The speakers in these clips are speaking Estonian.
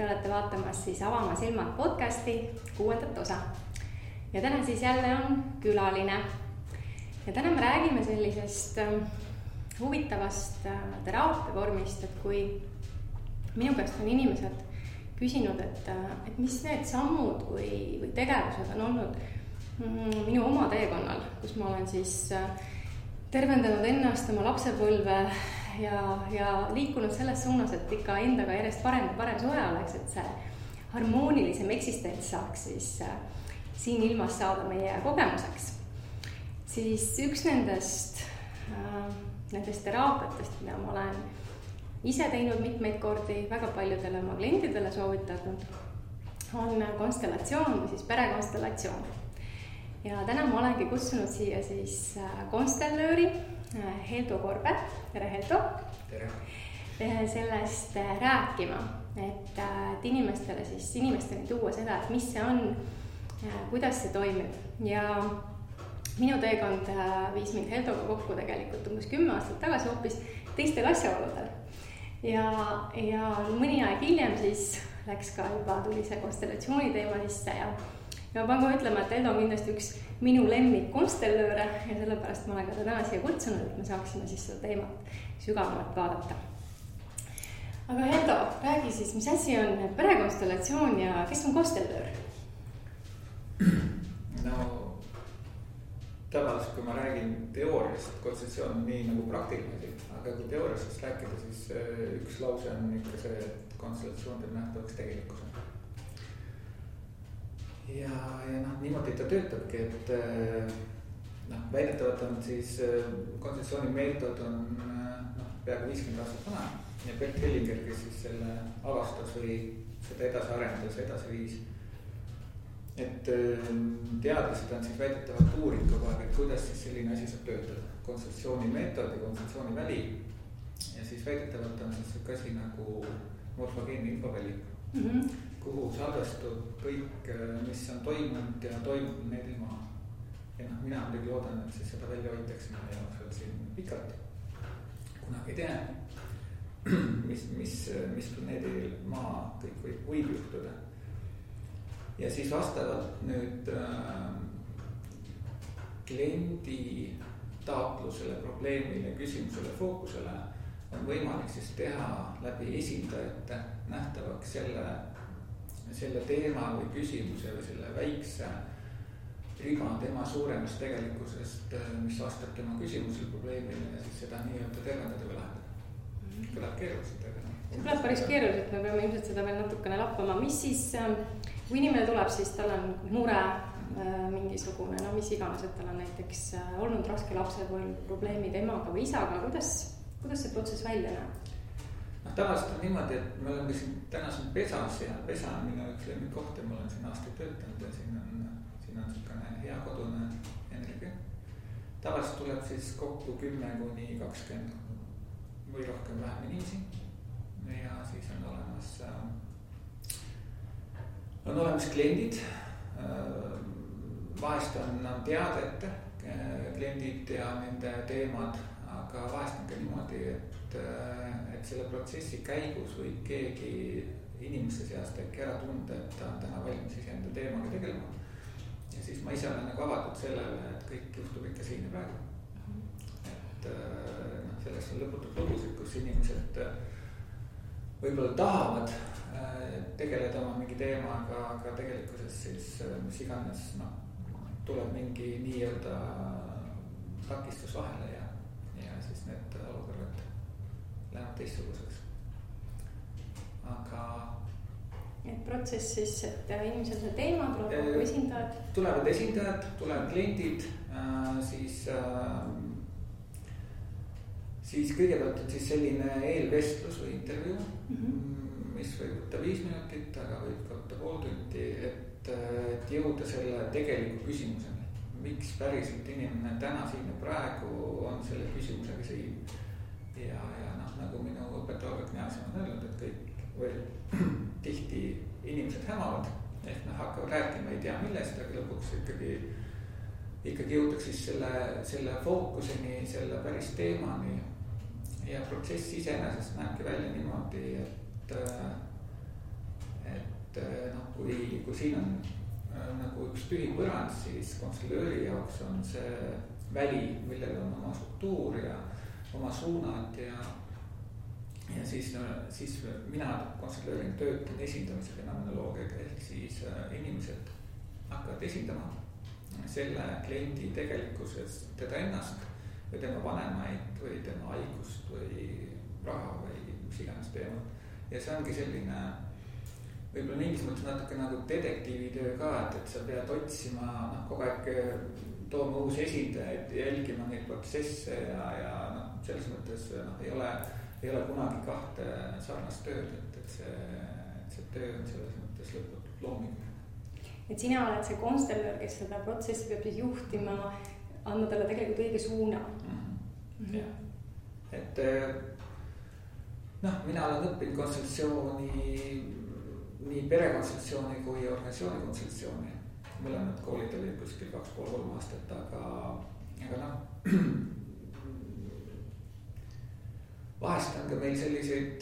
te olete vaatamas siis Avama silmad podcasti 6. osa. Ja täna siis jälle on külaline. Ja täna me räägime sellisest huvitavast teraapiavormist, et kui minu käest on inimesed küsinud, et mis need sammud või tegevused on olnud minu oma teekonnal, kus ma olen siis tervendanud ennast oma lapsepõlve ja liikunud selles suunas, et ikka endaga järjest parem suhe oleks, et see harmoonilisem eksistents saaks siis siin ilmas saada meie kogemuseks. Siis üks nendest teraapiatest, mida ma olen ise teinud mitmeid kordi, väga paljudele oma klientidele soovitanud, on konstellatsioon või siis perekonstellatsioon. Ja täna ma olengi kutsunud siia siis konstellööri Heldo Korbe. Tere, Heldo! Tere! Sellest rääkima, et inimestele tuua seda, et mis see on, kuidas see toimib. Ja minu teekond viis mind Heldoga kokku tegelikult umbes 10 aastat tagasi hoopis teistel asjaoludel. Ja mõni aeg hiljem siis läks ka tuli see konstellatsiooni teema sisse ja ma pean ka ütlema, et Heldo on kindlasti üks minu lemmik konstellööre ja sellepärast ma olen ka täna siia kutsunud, et me saaksime siis seda teemat sügavamalt vaadata. Aga Heldo, räägi siis, mis asi on perekonstellatsioon ja kes on konstellöör? No, tavaliselt kui ma räägin teooriast, konstellatsioon on nii nagu praktiline, aga kui teooriast rääkida, siis üks lause on ikka see, et konstellatsioon teeb nähtavaks tegelikkuse. Ja niimoodi ta töötabki, et väidetavalt on siis konstellatsiooni meetod on peaaegu 50 aastat vana ja Bert Hellinger, kes siis selle avastas või seda edasi arendas, edasi viis. Et teadlased on siis väidetavalt uurid kogu aeg, et kuidas siis selline asi saab töötada. Konstellatsiooni meetod ja konstellatsiooni väli ja siis väidetavalt on siis üks asi nagu morfogeenne infoväli. Kuhu salvestub kõik, mis on toimunud ja toimub need ilma. Ja mina muidugi loodan, et siis seda välja hoitakse meie jaoks siin pikalt. Kunagi ei tea, mis planeedil maa kõik võib juhtuda. Ja siis vastavalt nüüd kliendi taotlusele, probleemile, küsimusele, fookusele on võimalik siis teha läbi esindajate nähtavaks selle teema või küsimuse või selle väikse riba tema suuremast tegelikkusest, mis vastab tema küsimusele, probleemile ja siis seda nii-öelda tervendada või lahendada. Kõlab keeruliselt, aga see kõlab päris keeruliselt, me peame ilmselt seda veel natukene lappama. Mis siis, kui inimene tuleb, siis tal on mure mingisugune, mis iganes, et tal on näiteks olnud raske lapsepõlv, probleemid emaga või isaga, kuidas see protsess välja näeb? Tavaliselt on niimoodi, et me oleme siin täna siin pesas ja pesa on minu üks lemmikoht ja ma olen siin aastaid töötanud ja siin on niisugune hea kodune energia. Tavaliselt tuleb siis kokku 10-20 või rohkem vähem inimesi ja siis on olemas kliendid. Vahest on teadete kliendid ja nende teemad, aga vahest on ka niimoodi, et selle protsessi käigus võib keegi inimeste seast äkki ära tunda, et ta on täna valmis enda teemaga tegelema. Ja siis ma ise olen nagu avatud sellele, et kõik juhtub ikka siin ja praegu. Et sellest on lõputud lugusid, kus inimesed võib-olla tahavad tegeleda oma mingi teemaga, aga tegelikkuses siis mis iganes tuleb mingi nii-öelda takistus vahele ja siis need olukorrad lähevad teistsuguseks. Aga et protsess siis, et inimesel see teema tuleb esindajad? Tulevad esindajad, tulevad kliendid, siis kõigepealt on siis selline eelvestlus või intervjuu, mis võib võtta 5 minutit, aga võib ka võtta pool tundi, et jõuda selle tegeliku küsimuseni. Miks päriselt inimene täna siin ja praegu on selle küsimusega siin? Ja nagu minu õpetaja Kneasen on öelnud, et kõik tihti inimesed hämavad, ehk hakkavad rääkima, ei tea millest, aga lõpuks ikkagi jõutakse siis selle fookuseni, selle päris teemani ja protsess iseenesest näebki välja niimoodi, et noh, kui siin on nagu üks tühi põrand, siis konstellööri jaoks on see väli, millel on oma struktuur ja oma suunad ja siis mina konstellöörina töötan esindamise fenomenoloogiaga, ehk siis inimesed hakkavad esindama selle kliendi tegelikkuses teda ennast või tema vanemaid või tema haigust või raha või mis iganes teemat. Ja see ongi selline võib-olla mingis mõttes natuke nagu detektiivitöö ka, et sa pead otsima kogu aeg tooma uusi esindajaid, jälgima neid protsesse ja selles mõttes ei ole kunagi kahte sarnast tööd, et see töö on selles mõttes lõputult looming. Et sina oled see konstellöör, kes seda protsessi peab siis juhtima, andma talle tegelikult õige suuna. Jah, et mina olen õppinud konstellatsiooni, nii perekonstellatsiooni kui organisatsiooni konstellatsiooni. Mõlemad koolid olid kuskil 2,5-3 aastat, aga vahest on ka meil selliseid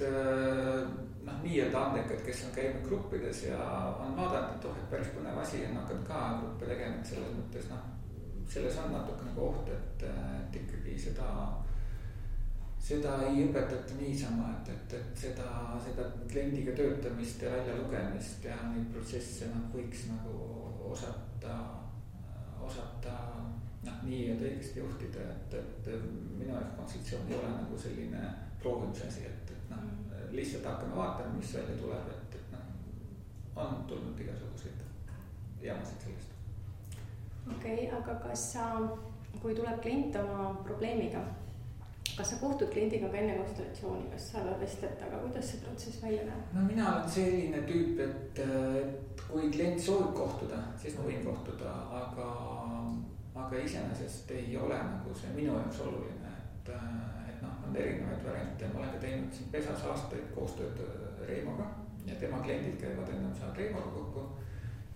nii-öelda andekad, kes on käinud gruppides ja on vaadanud, et päris põnev asi on hakanud ka gruppe tegema, et selles mõttes selles on natuke nagu oht, et ikkagi seda ei õpetata niisama, et seda kliendiga töötamist ja välja lugemist ja neid protsesse võiks nagu osata nii-öelda õigesti juhtida, et minu jaoks konstellatsioon ei ole nagu selline proovimise asi, et lihtsalt hakkame vaatama, mis välja tuleb, et on tulnud igasuguseid jamasid sellest. Okei, aga kas kui tuleb klient oma probleemiga, kas sa kohtud kliendiga ka enne konstellatsiooni, kas sa vestled, aga kuidas see protsess välja näeb? Mina olen selline tüüp, et kui klient soovib kohtuda, siis ma võin kohtuda, aga iseenesest ei ole nagu see minu jaoks oluline, et on erinevaid variante. Ma olen ka teinud siin pesas aastaid koostööd Reimoga ja tema kliendid käivad ennem saavad Reimoga kokku.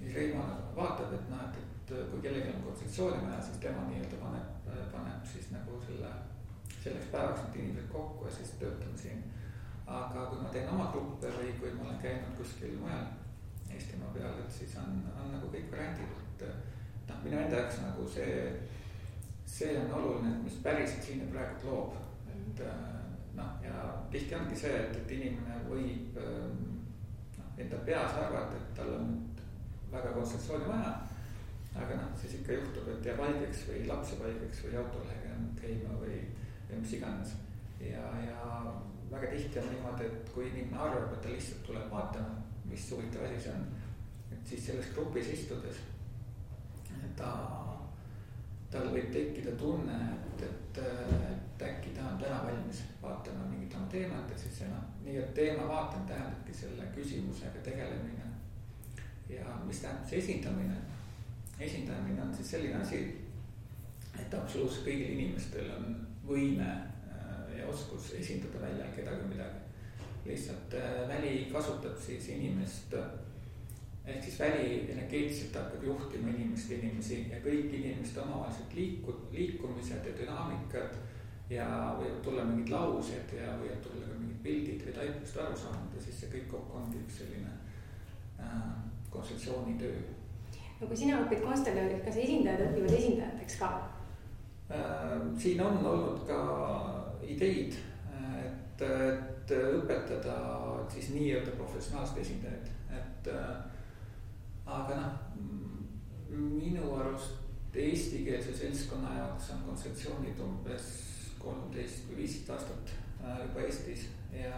Ja Reimo vaatab, et kui kellelgi on konsultatsiooni vaja, siis tema nii-öelda paneb siis nagu selleks päevaks need inimesed kokku ja siis töötame siin. Aga kui ma teen oma gruppe või kui ma olen käinud kuskil mujal Eestimaa peal, et siis on nagu kõik variandid, et minu enda jaoks nagu see on oluline, et mis päriselt siin praegu loob. Ja tihti ongi see, et inimene võib enda peas arvata, et tal on väga konsultatsiooni vaja, aga siis ikka juhtub, et jääb haigeks või laps jääb haigeks või autolehega käima või mis iganes. Ja väga tihti on niimoodi, et kui inimene arvab, et ta lihtsalt tuleb vaatama, mis huvitav asi see on, et siis selles grupis istudes tal võib tekkida tunne, et äkki ta on täna valmis vaatama mingit oma teemat, et siis nii et teema vaatamine tähendabki selle küsimusega tegelemine. Ja mis tähendab see esindamine? Esindamine on siis selline asi, et absoluutselt kõigil inimestel on võime ja oskus esindada välja kedagi midagi. Lihtsalt väli kasutab siis inimest, ehk siis väli energeetiliselt hakkab juhtima inimesi ja kõik inimeste omavahelised liikumised ja dünaamikad ja võivad tulla mingid laused ja võivad tulla ka mingid pildid või taipust aru saanud ja siis see kõik kokku ongi üks selline konsultatsioonitöö. No kui sina õpid konstellöörid, kas esindajad õpivad esindajateks ka? Siin on olnud ka ideid, et õpetada siis nii-öelda professionaalsed esindajad, aga minu arust eestikeelse seltskonna jaoks on kontseptsioonid umbes 13 või 15 aastat juba Eestis ja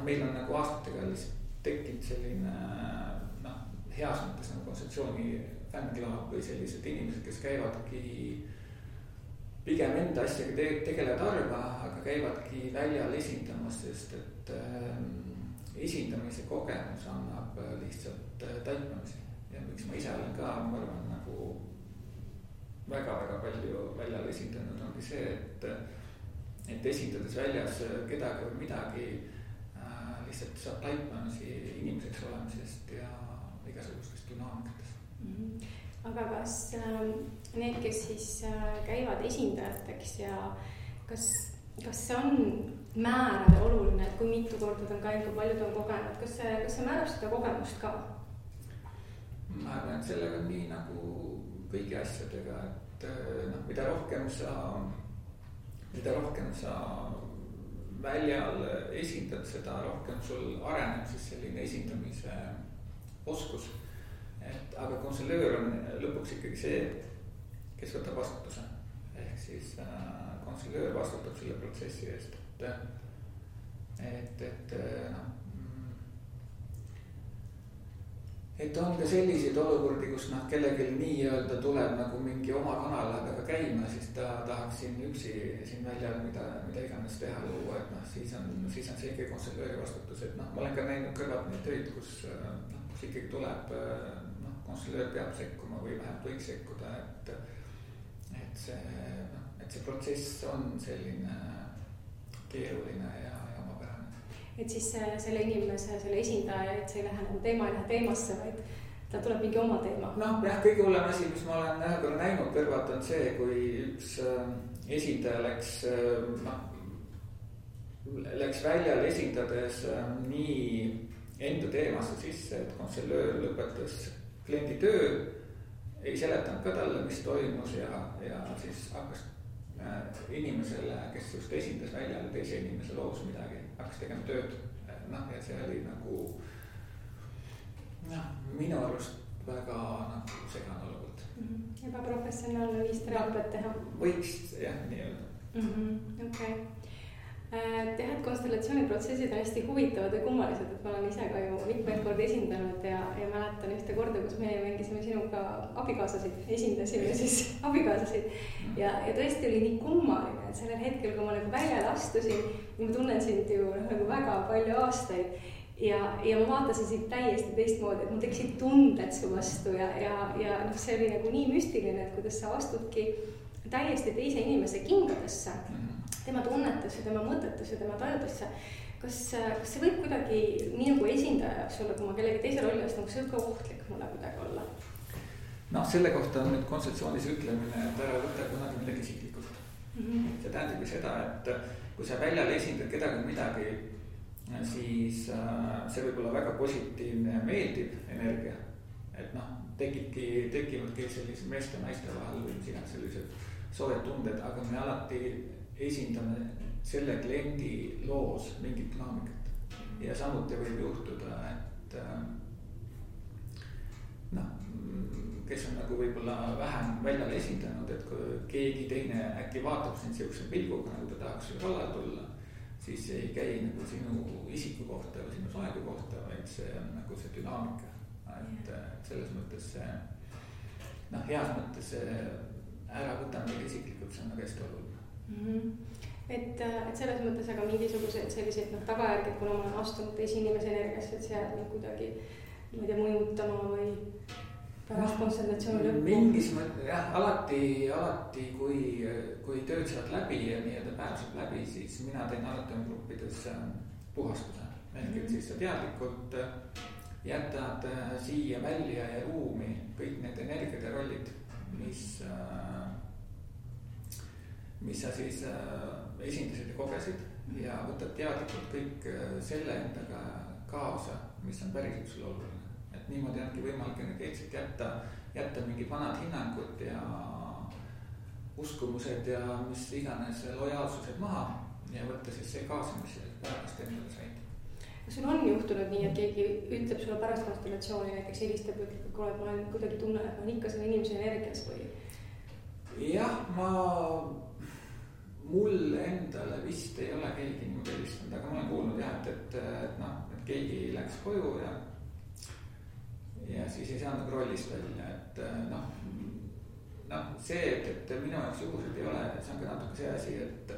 meil on nagu aastatega lihtsalt tekkinud selline heas mõttes nagu kontseptsiooni fänniklaab või sellised inimesed, kes käivadki pigem enda asjaga tegelevad harva, aga käivadki väljal esindamas, sest et esindamise kogemus annab lihtsalt taipamisi ja miks ma ise olen ka, ma arvan, nagu väga-väga palju väljal esindanud ongi see, et esindades väljas kedagi või midagi lihtsalt saab taipamisi inimeseks olemisest ja igasugustest dünaamikatest. Aga kas need, kes siis käivad esindajateks ja kas kas see on määrav ja oluline, et kui mitu korda ta on käinud, kui palju ta on kogenud, kas see määrab seda kogemust ka? Ma arvan, et sellega on nii nagu kõigi asjadega, et noh, mida rohkem sa väljal esindad, seda rohkem sul areneb siis selline esindamise oskus. Et aga konselöör on lõpuks ikkagi see, kes võtab vastutuse. Ehk siis konselöör vastutab selle protsessi eest, et on ka selliseid olukordi, kus kellelgi nii-öelda tuleb nagu mingi oma kanalaga käima, siis ta tahaks siin üksi siin väljal mida iganes teha luua, et siis on see ikkagi konselööri vastutus, et ma olen ka näinud kõrvalt neid töid, kus ikkagi tuleb, konselöör peab sekkuma või vähemalt võiks sekkuda, et see protsess on selline keeruline ja omapärane. Et siis selle inimese, selle esindaja, et see ei lähe nagu teema ei lähe teemasse, vaid ta tuleb mingi oma teema. Jah, kõige hullem asi, mis ma olen ühe korra näinud kõrvalt on see, kui üks esindaja läks väljal esindades nii enda teemasse sisse, et konselöör lõpetas kliendi töö, ei seletanud ka talle, mis toimus ja siis hakkas inimesele, kes just esindas väljal teise inimese loos midagi, hakkas tegema tööd. Ja see oli nagu minu arust väga segane olukord. Ebaprofessionaalne viis teraapiat teha. Võiks jah, nii-öelda. Okay. Tead, konstellatsiooniprotsessid on hästi huvitavad ja kummalised, et ma olen ise ka ju mitmeid korda esindanud ja mäletan ühte korda, kus me mängisime sinuga esindasime siis abikaasasid ja tõesti oli nii kummaline, et sellel hetkel, kui ma nagu väljale astusin, ma tunnen sind ju nagu väga palju aastaid ja ma vaatasin sind täiesti teistmoodi, et mul tekkisid tunded su vastu ja see oli nagu nii müstiline, et kuidas sa astudki täiesti teise inimese kingadesse, tema tunnetusse, tema mõtetusse, tema tajutusse. Kas see võib kuidagi nii nagu esindaja jaoks olla, kui ma kellegi teise rolli astun, kas see võib ka ohtlik mulle kuidagi olla? Selle kohta on nüüd kontseptsioonis ütlemine, et ära võtta kunagi midagi isiklikult. See tähendab seda, et kui sa väljal esindad kedagi midagi, siis see võib olla väga positiivne ja meeldiv energia. Et tekivadki sellise meeste ja naiste vahel või sellised soojad tunded, aga me alati esindame selle kliendi loos mingit dünaamikat. Ja samuti võib juhtuda, et kes on nagu võib-olla vähem väljal esindanud, et kui keegi teine äkki vaatab sind sellise pilguga, nagu ta tahaks kallal tulla, siis ei käi nagu sinu isiku kohta või sinu soegu kohta, vaid see on nagu see dünaamika. Et selles mõttes see, heas mõttes see ära võtame midagi isiklikult, see on nagu hästi oluline. Et selles mõttes aga mingisugused sellised tagajärged, kuna ma olen astunud teise inimese energiasse, et see jääb nii kuidagi mõjutama või pärast konsultatsiooni lõppu? Mingis mõttes jah, alati kui tööd saad läbi ja nii-öelda päev saab läbi, siis mina teen alati on gruppides puhastuse. Ehk et siis sa teadlikult jätad siia välja ja ruumi kõik need energiad ja rollid, mis sa siis esindasid ja kogesid ja võtad teadlikult kõik selle endaga kaasa, mis on päriselt sulle oluline. Et niimoodi ongi võimalik energeetselt jätta mingid vanad hinnangud ja uskumused ja mis iganes lojaalsused maha ja võtta siis see kaasa, mis pärast endale said. Sul on juhtunud nii, et keegi ütleb sulle pärast konstellatsiooni, näiteks helistab, ütleb, et kuule, ma olen kuidagi tunnen, et ma olen ikka selle inimese energias või? Jah, mul endale vist ei ole keegi niimoodi helistanud, aga ma olen kuulnud jah, et keegi läks koju ja siis ei saanud rollist välja, et see, et minu jaoks juhused ei ole, see on ka natuke see asi, et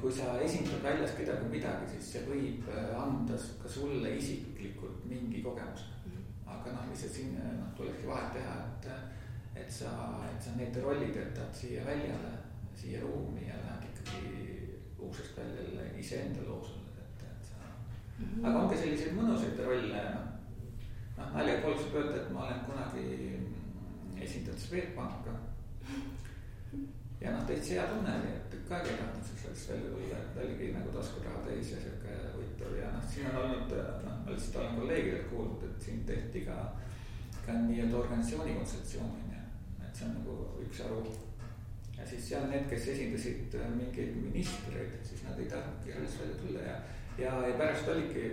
kui sa esindad väljas kedagi midagi, siis see võib anda ka sulle isiklikult mingi kogemus. Aga lihtsalt siin tulekski vahet teha, et sa need rollid jätad siia väljale, siia ruumi ja lähed ikkagi uksest välja iseenda loosule. Aga ongi selliseid mõnusaid rolle. Nalja pooleks võib öelda, et ma olen kunagi esindanud Swedbanka ja noh, täitsa hea tunne oli, et tükk aega ei tahtnud sellest välja tulla, et oligi nagu taskuraha täis ja siuke huvitav ja noh, siin on olnud, noh, ma lihtsalt olen kolleegidelt kuulnud, et siin tehti ka nii-öelda organisatsiooni kontseptsiooni, et see on nagu üks aru. Ja siis seal need, kes esindasid mingeid ministreid, siis nad ei tahtnudki alles välja tulla ja pärast oligi,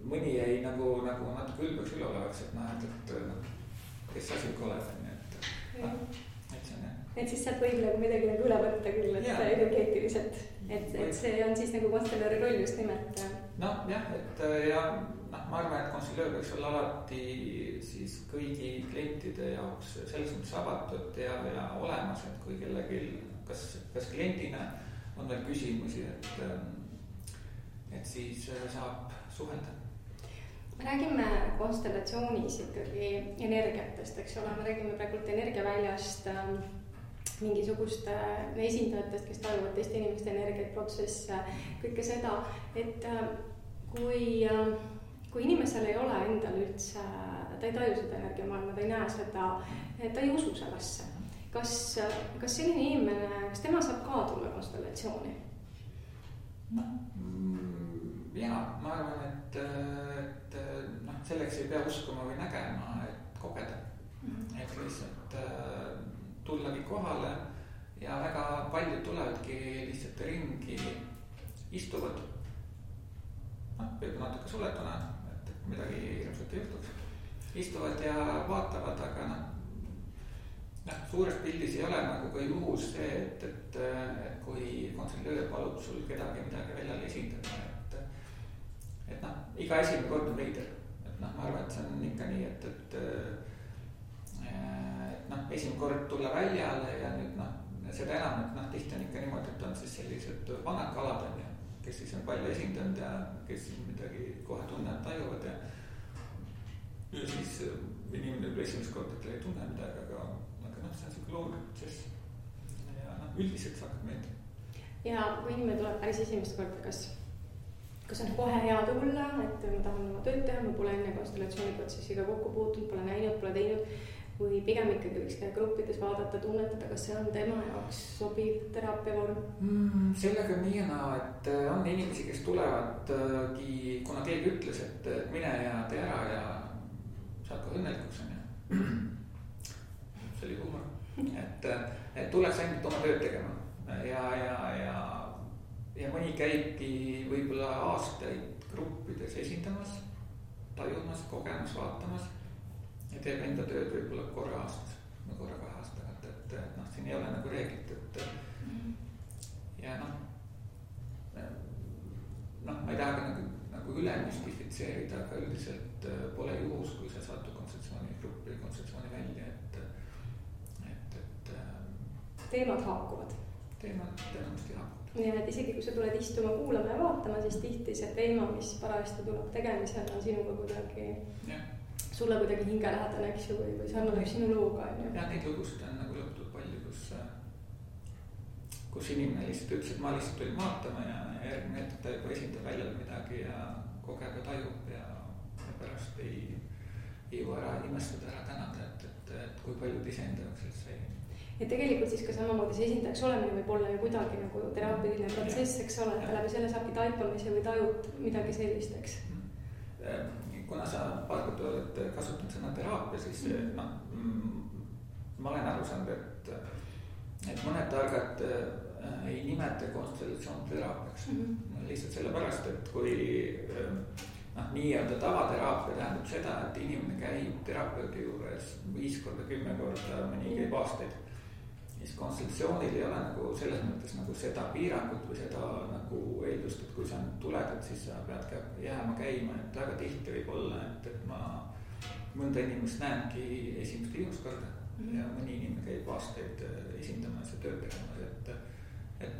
mõni jäi nagu natuke ülbeks üleolevaks, et noh, et kes asi oled, nii et see on jah. Et siis sealt võib nagu midagi nagu üle võtta küll, et energeetiliselt, et see on siis nagu konstellööri roll just nimelt. Noh jah, et ja noh, ma arvan, et konstellöör võiks olla alati siis kõigi klientide jaoks selles mõttes avatud ja olemas, et kui kellelgi, kas kliendina on veel küsimusi, et siis saab suhelda. Me räägime konstellatsioonis ikkagi energiatest, eks ole, me räägime praegult energiaväljast, mingisuguste esindajatest, kes tajuvad teiste inimeste energiat, protsesse, kõike seda, et kui inimesel ei ole endal üldse, ta ei taju seda energiamaailma, ta ei näe seda, ta ei usu sellesse. Kas selline inimene, kas tema saab ka tulla konstellatsiooni? Jaa, ma arvan, et selleks ei pea uskuma või nägema, et kogeda. Et lihtsalt tullagi kohale ja väga paljud tulevadki lihtsalt ringi, istuvad, võib natuke suletuna, et midagi hirmsat ei juhtuks, istuvad ja vaatavad, aga suures pildis ei ole nagu ka juhus see, et kui konstellöör palub sul kedagi midagi väljal esindada, et iga esimene kord on veider, et ma arvan, et see on ikka nii, et esimene kord tulla väljale ja nüüd seda enam, et tihti on ikka niimoodi, et on siis sellised vanad kalad on ja kes siis on palju esindanud ja kes siis midagi kohe tunnevad, tajuvad ja siis inimene võib esimest kord, et ei tunne midagi, aga see on selline loomulik protsess ja üldiselt see hakkab meeldima. Ja kui inimene tuleb päris esimest korda, kas on kohe hea tulla, et ma tahan oma tööd teha, ma pole enne konstellatsiooniprotsessiga kokku puutunud, pole näinud, pole teinud, või pigem ikkagi võiks käia gruppides vaadata, tunnetada, kas see on tema jaoks sobiv teraapiavorm? Sellega on nii ja naa, et on inimesi, kes tulevadki, kuna keegi ütles, et mine ja tee ära ja saad ka õnnelikuks on ja see oli huumor, et tuleks ainult oma tööd tegema ja mõni käibki võib-olla aastaid gruppides esindamas, tajumas, kogemas, vaatamas ja teeb enda tööd võib-olla korra aastas või korra 2 aastaga, et siin ei ole nagu reeglit, et ja ma ei taha ka nagu üle müstifitseerida, aga üldiselt pole juhus, kui sa satud kontseptsiooni gruppi, kontseptsiooni välja, et teemad haakuvad. Teemad tõenäoliselt haakuvad. Ja et isegi kui sa tuled istuma, kuulama ja vaatama, siis tihti see teema, mis parajasti tuleb tegemisel, on sinuga kuidagi, sulle kuidagi hingelähedane, eks ju, või sarnaneb sinu looga. Ja neid lugusid on nagu lõputud palju, kus inimene lihtsalt ütles, et ma lihtsalt tulin vaatama ja järgmine hetk ta juba esindab väljal midagi ja kogeb ja tajub ja pärast ei jõua ära imestada, ära tänada, et kui paljud iseenda jaoks sellest sai. Ja tegelikult siis ka samamoodi see esindajaks olemine võib olla ju kuidagi nagu teraapiline protsess, eks ole, et läbi selle saabki taipamise või tajud midagi sellist, eks? Kuna sa paar korda oled kasutanud sõna teraapia, siis ma olen aru saanud, et mõned targad ei nimeta konstellatsioon teraapiaks. Lihtsalt sellepärast, et kui nii-öelda tavateraapia tähendab seda, et inimene käib terapeudi juures 5 korda, 10 korda, mõni käib aastaid. Siis konstellatsioonil ei ole nagu selles mõttes nagu seda piirangut või seda nagu eeldust, et kui sa tuled, et siis sa pead jääma käima, et väga tihti võib olla, et ma mõnda inimest näengi esimest viimast korda ja mõni inimene käib aastaid esindamas ja tööd tegemas, et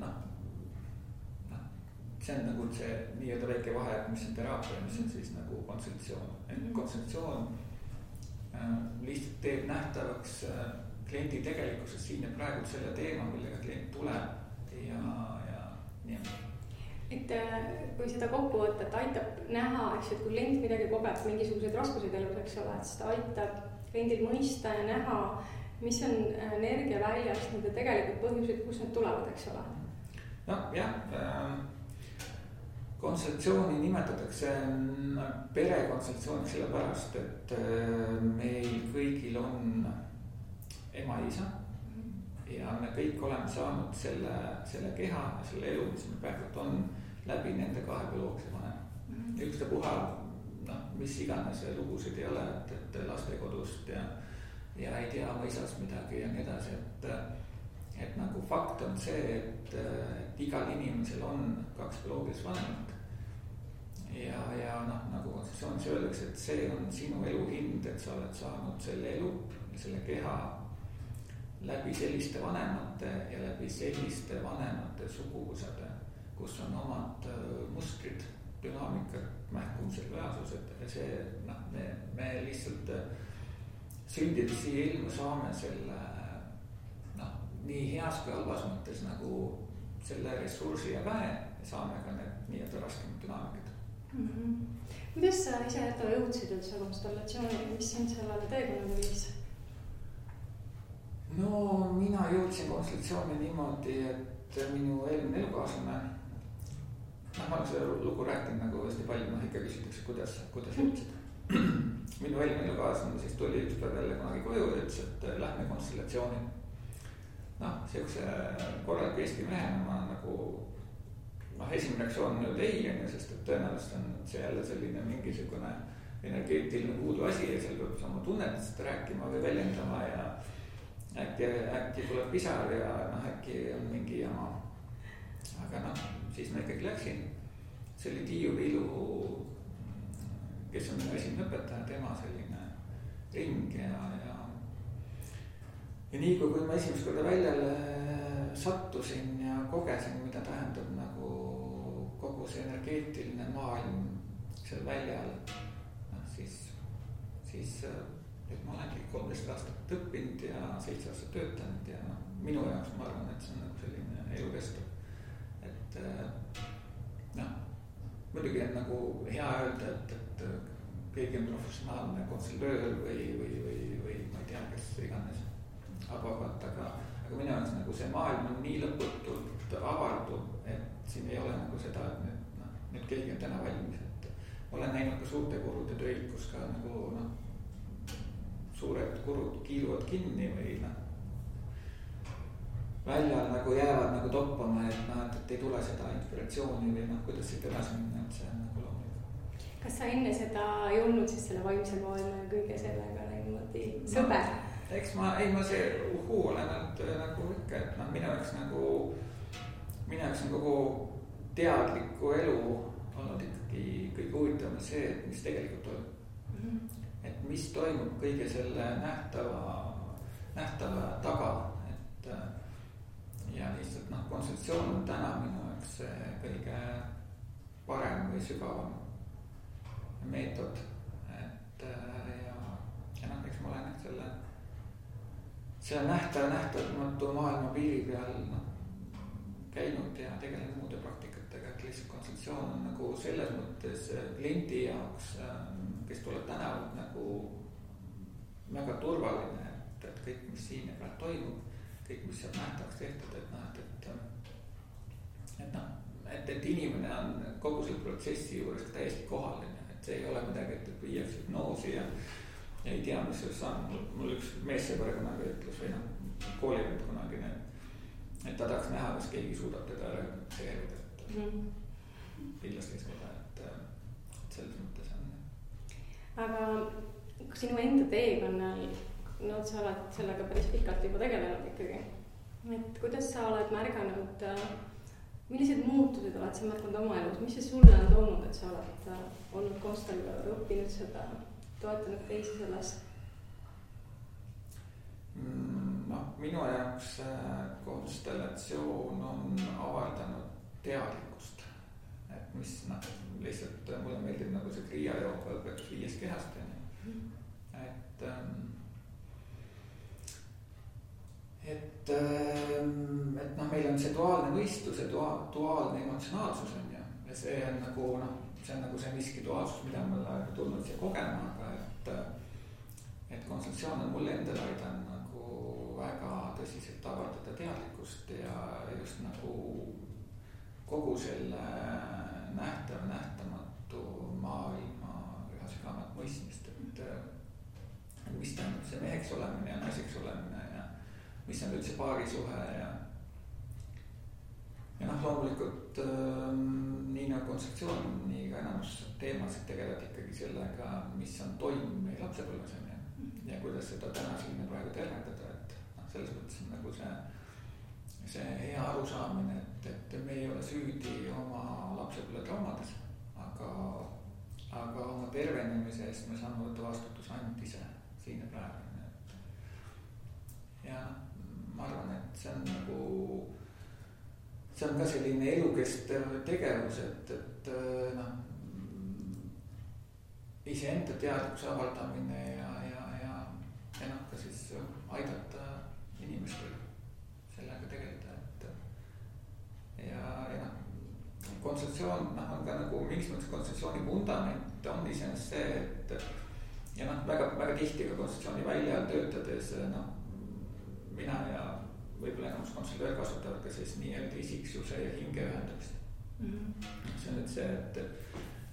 see on nagu see nii-öelda väike vahe, mis on teraapia, mis on siis nagu konstellatsioon. Et konstellatsioon lihtsalt teeb nähtavaks kliendi tegelikkuses siin ja praegu selle teema, millega klient tuleb ja nii. Et kui seda kokkuvõtet aitab näha, eks, et kui klient midagi kogeb, mingisuguseid raskuseid elus, eks ole, et seda aitab kliendil mõista ja näha, mis on energiaväljast nende tegelikult põhjused, kus need tulevad, eks ole? No jah, konstellatsiooni nimetatakse perekonstellatsiooniks sellepärast, et meil kõigil on ema ja isa ja me kõik oleme saanud selle keha ja selle elu, mis meil praegult on, läbi nende kahe bioloogilise vanema. Ükstapuha, mis iganes lugusid ei ole, et lastekodust ja ei tea oma isast midagi ja nii edasi, et nagu fakt on see, et igal inimesel on kaks bioloogilist vanemat. Ja nagu konstitutsioonis öeldakse, et see on sinu elu hind, et sa oled saanud selle elu ja selle keha läbi selliste vanemate ja läbi selliste vanemate suguvõsade, kus on omad mustrid, dünaamikad, mähkumised, reaalsused ja see, me lihtsalt sündides siia ilma saame selle nii heas kui halvas mõttes nagu selle ressursi ja väe ja saame ka need nii-öelda raskemad dünaamikad. Kuidas sa ise jõudsid üldse konstellatsiooni, mis sind sellele teekonnale viis? No mina jõudsin konstellatsiooni niimoodi, et minu eelmine elukaaslane, ma olen seda lugu rääkinud nagu hästi palju, ikka küsitakse, kuidas jõudsid. Minu eelmine elukaaslane siis tuli üks päev jälle kunagi koju ja ütles, et lähme konstellatsiooni. Sellise korraliku Eesti mehena ma nagu esimene reaktsioon on ei, sest et tõenäoliselt on see jälle selline mingisugune energeetiline puudu asi ja seal peab oma tunnetest rääkima või väljendama ja äkki tuleb pisar ja äkki on mingi jama. Aga siis ma ikkagi läksin. See oli Tiiu Viilu, kes on minu esimene õpetaja, tema selline ring ja nii kui ma esimest korda väljale sattusin ja kogesin, mida tähendab nagu kogu see energeetiline maailm seal väljal, siis et ma olengi 13 aastat õppinud ja 7 aastat töötanud ja minu jaoks ma arvan, et see on nagu selline elukestev. Et muidugi on nagu hea öelda, et keegi on professionaalne konsultöör või ma ei tea, kes iganes abavalt, aga minu jaoks nagu see maailm on nii lõputult avardub, et siin ei ole nagu seda, et nüüd keegi on täna valmis, et olen näinud ka suurte kurude töid, kus ka nagu suured kurud kiiluvad kinni või väljal nagu jäävad nagu toppama, et ei tule seda inspiratsiooni või kuidas siit edasi minna, et see on nagu loomulik. Kas sa enne seda ei olnud siis selle vaimse maailma ja kõige sellega niimoodi sõber? Eks ma see olen nagu ikka, et minu jaoks on kogu teadliku elu olnud ikkagi kõige huvitavam see, et mis tegelikult toimub. Et mis toimub kõige selle nähtava taga, et ja lihtsalt konstellatsioon on täna minu jaoks kõige parem või sügavam meetod, et ja eks ma olen selle nähtamatu maailma piiri peal käinud ja tegelenud muude praktikatega, et lihtsalt konstellatsioon on nagu selles mõttes kliendi jaoks, kes tuleb tänavalt nagu väga turvaline, et kõik, mis siin ja praegu toimub, kõik, mis seal nähtavaks tehtud, et inimene on kogu selle protsessi juures täiesti kohal, et see ei ole midagi, et viiakse hüpnoosi ja ei tea, mis sellest on. Mul üks meessõber kunagi ütles või koolivend kunagi, et ta tahaks näha, kas keegi suudab teda reageerida, et kindlasti seda, et selles mõttes on. Aga sinu enda teekonnal, sa oled sellega päris pikalt juba tegelenud ikkagi, et kuidas sa oled märganud, millised muutused oled sa märganud oma elus, mis see sulle on toonud, et sa oled olnud konstellar, õppinud seda, toetanud teisi selles? Minu jaoks konstellatsioon on avaldanud teadlikkust, et mis lihtsalt mulle meeldib nagu see Kriia jooga õpetus 5 kehast, et meil on see duaalne mõistus ja duaalne emotsionaalsus on ja see on nagu see miski duaalsus, mida ma olen tulnud siia kogema, aga et konstellatsioon on mulle endale aidanud nagu väga tõsiselt avaldada teadlikkust ja just nagu kogu selle nähtav, nähtamatu maailma üha sügavat mõistmist, et mis tähendab see meheks olemine ja naiseks olemine ja mis on üldse paarisuhe ja loomulikult nii nagu kontseptsioon, nii ka enamus teemasid tegelevad ikkagi sellega, mis on toimunud meie lapsepõlves ja kuidas seda täna siin praegu tervendada, et selles mõttes on nagu see hea arusaamine, et me ei ole süüdi oma lapsepõlve traumades, aga oma tervenemise eest me saame võtta vastutuse ainult ise siin ja praegu. Ja ma arvan, et see on ka selline elukestev tegevus, et iseenda teadlikkuse avaldamine ja ka siis aidata inimestel sellega tegeleda, kontseptsioon on ka nagu mingis mõttes kontseptsiooni vundament on iseenesest see, et väga tihti ka kontseptsiooni väljal töötades mina ja võib-olla enamus konsultöör kasutavad ka siis nii-öelda isiksuse ja hinge ühendamist. See on nüüd see,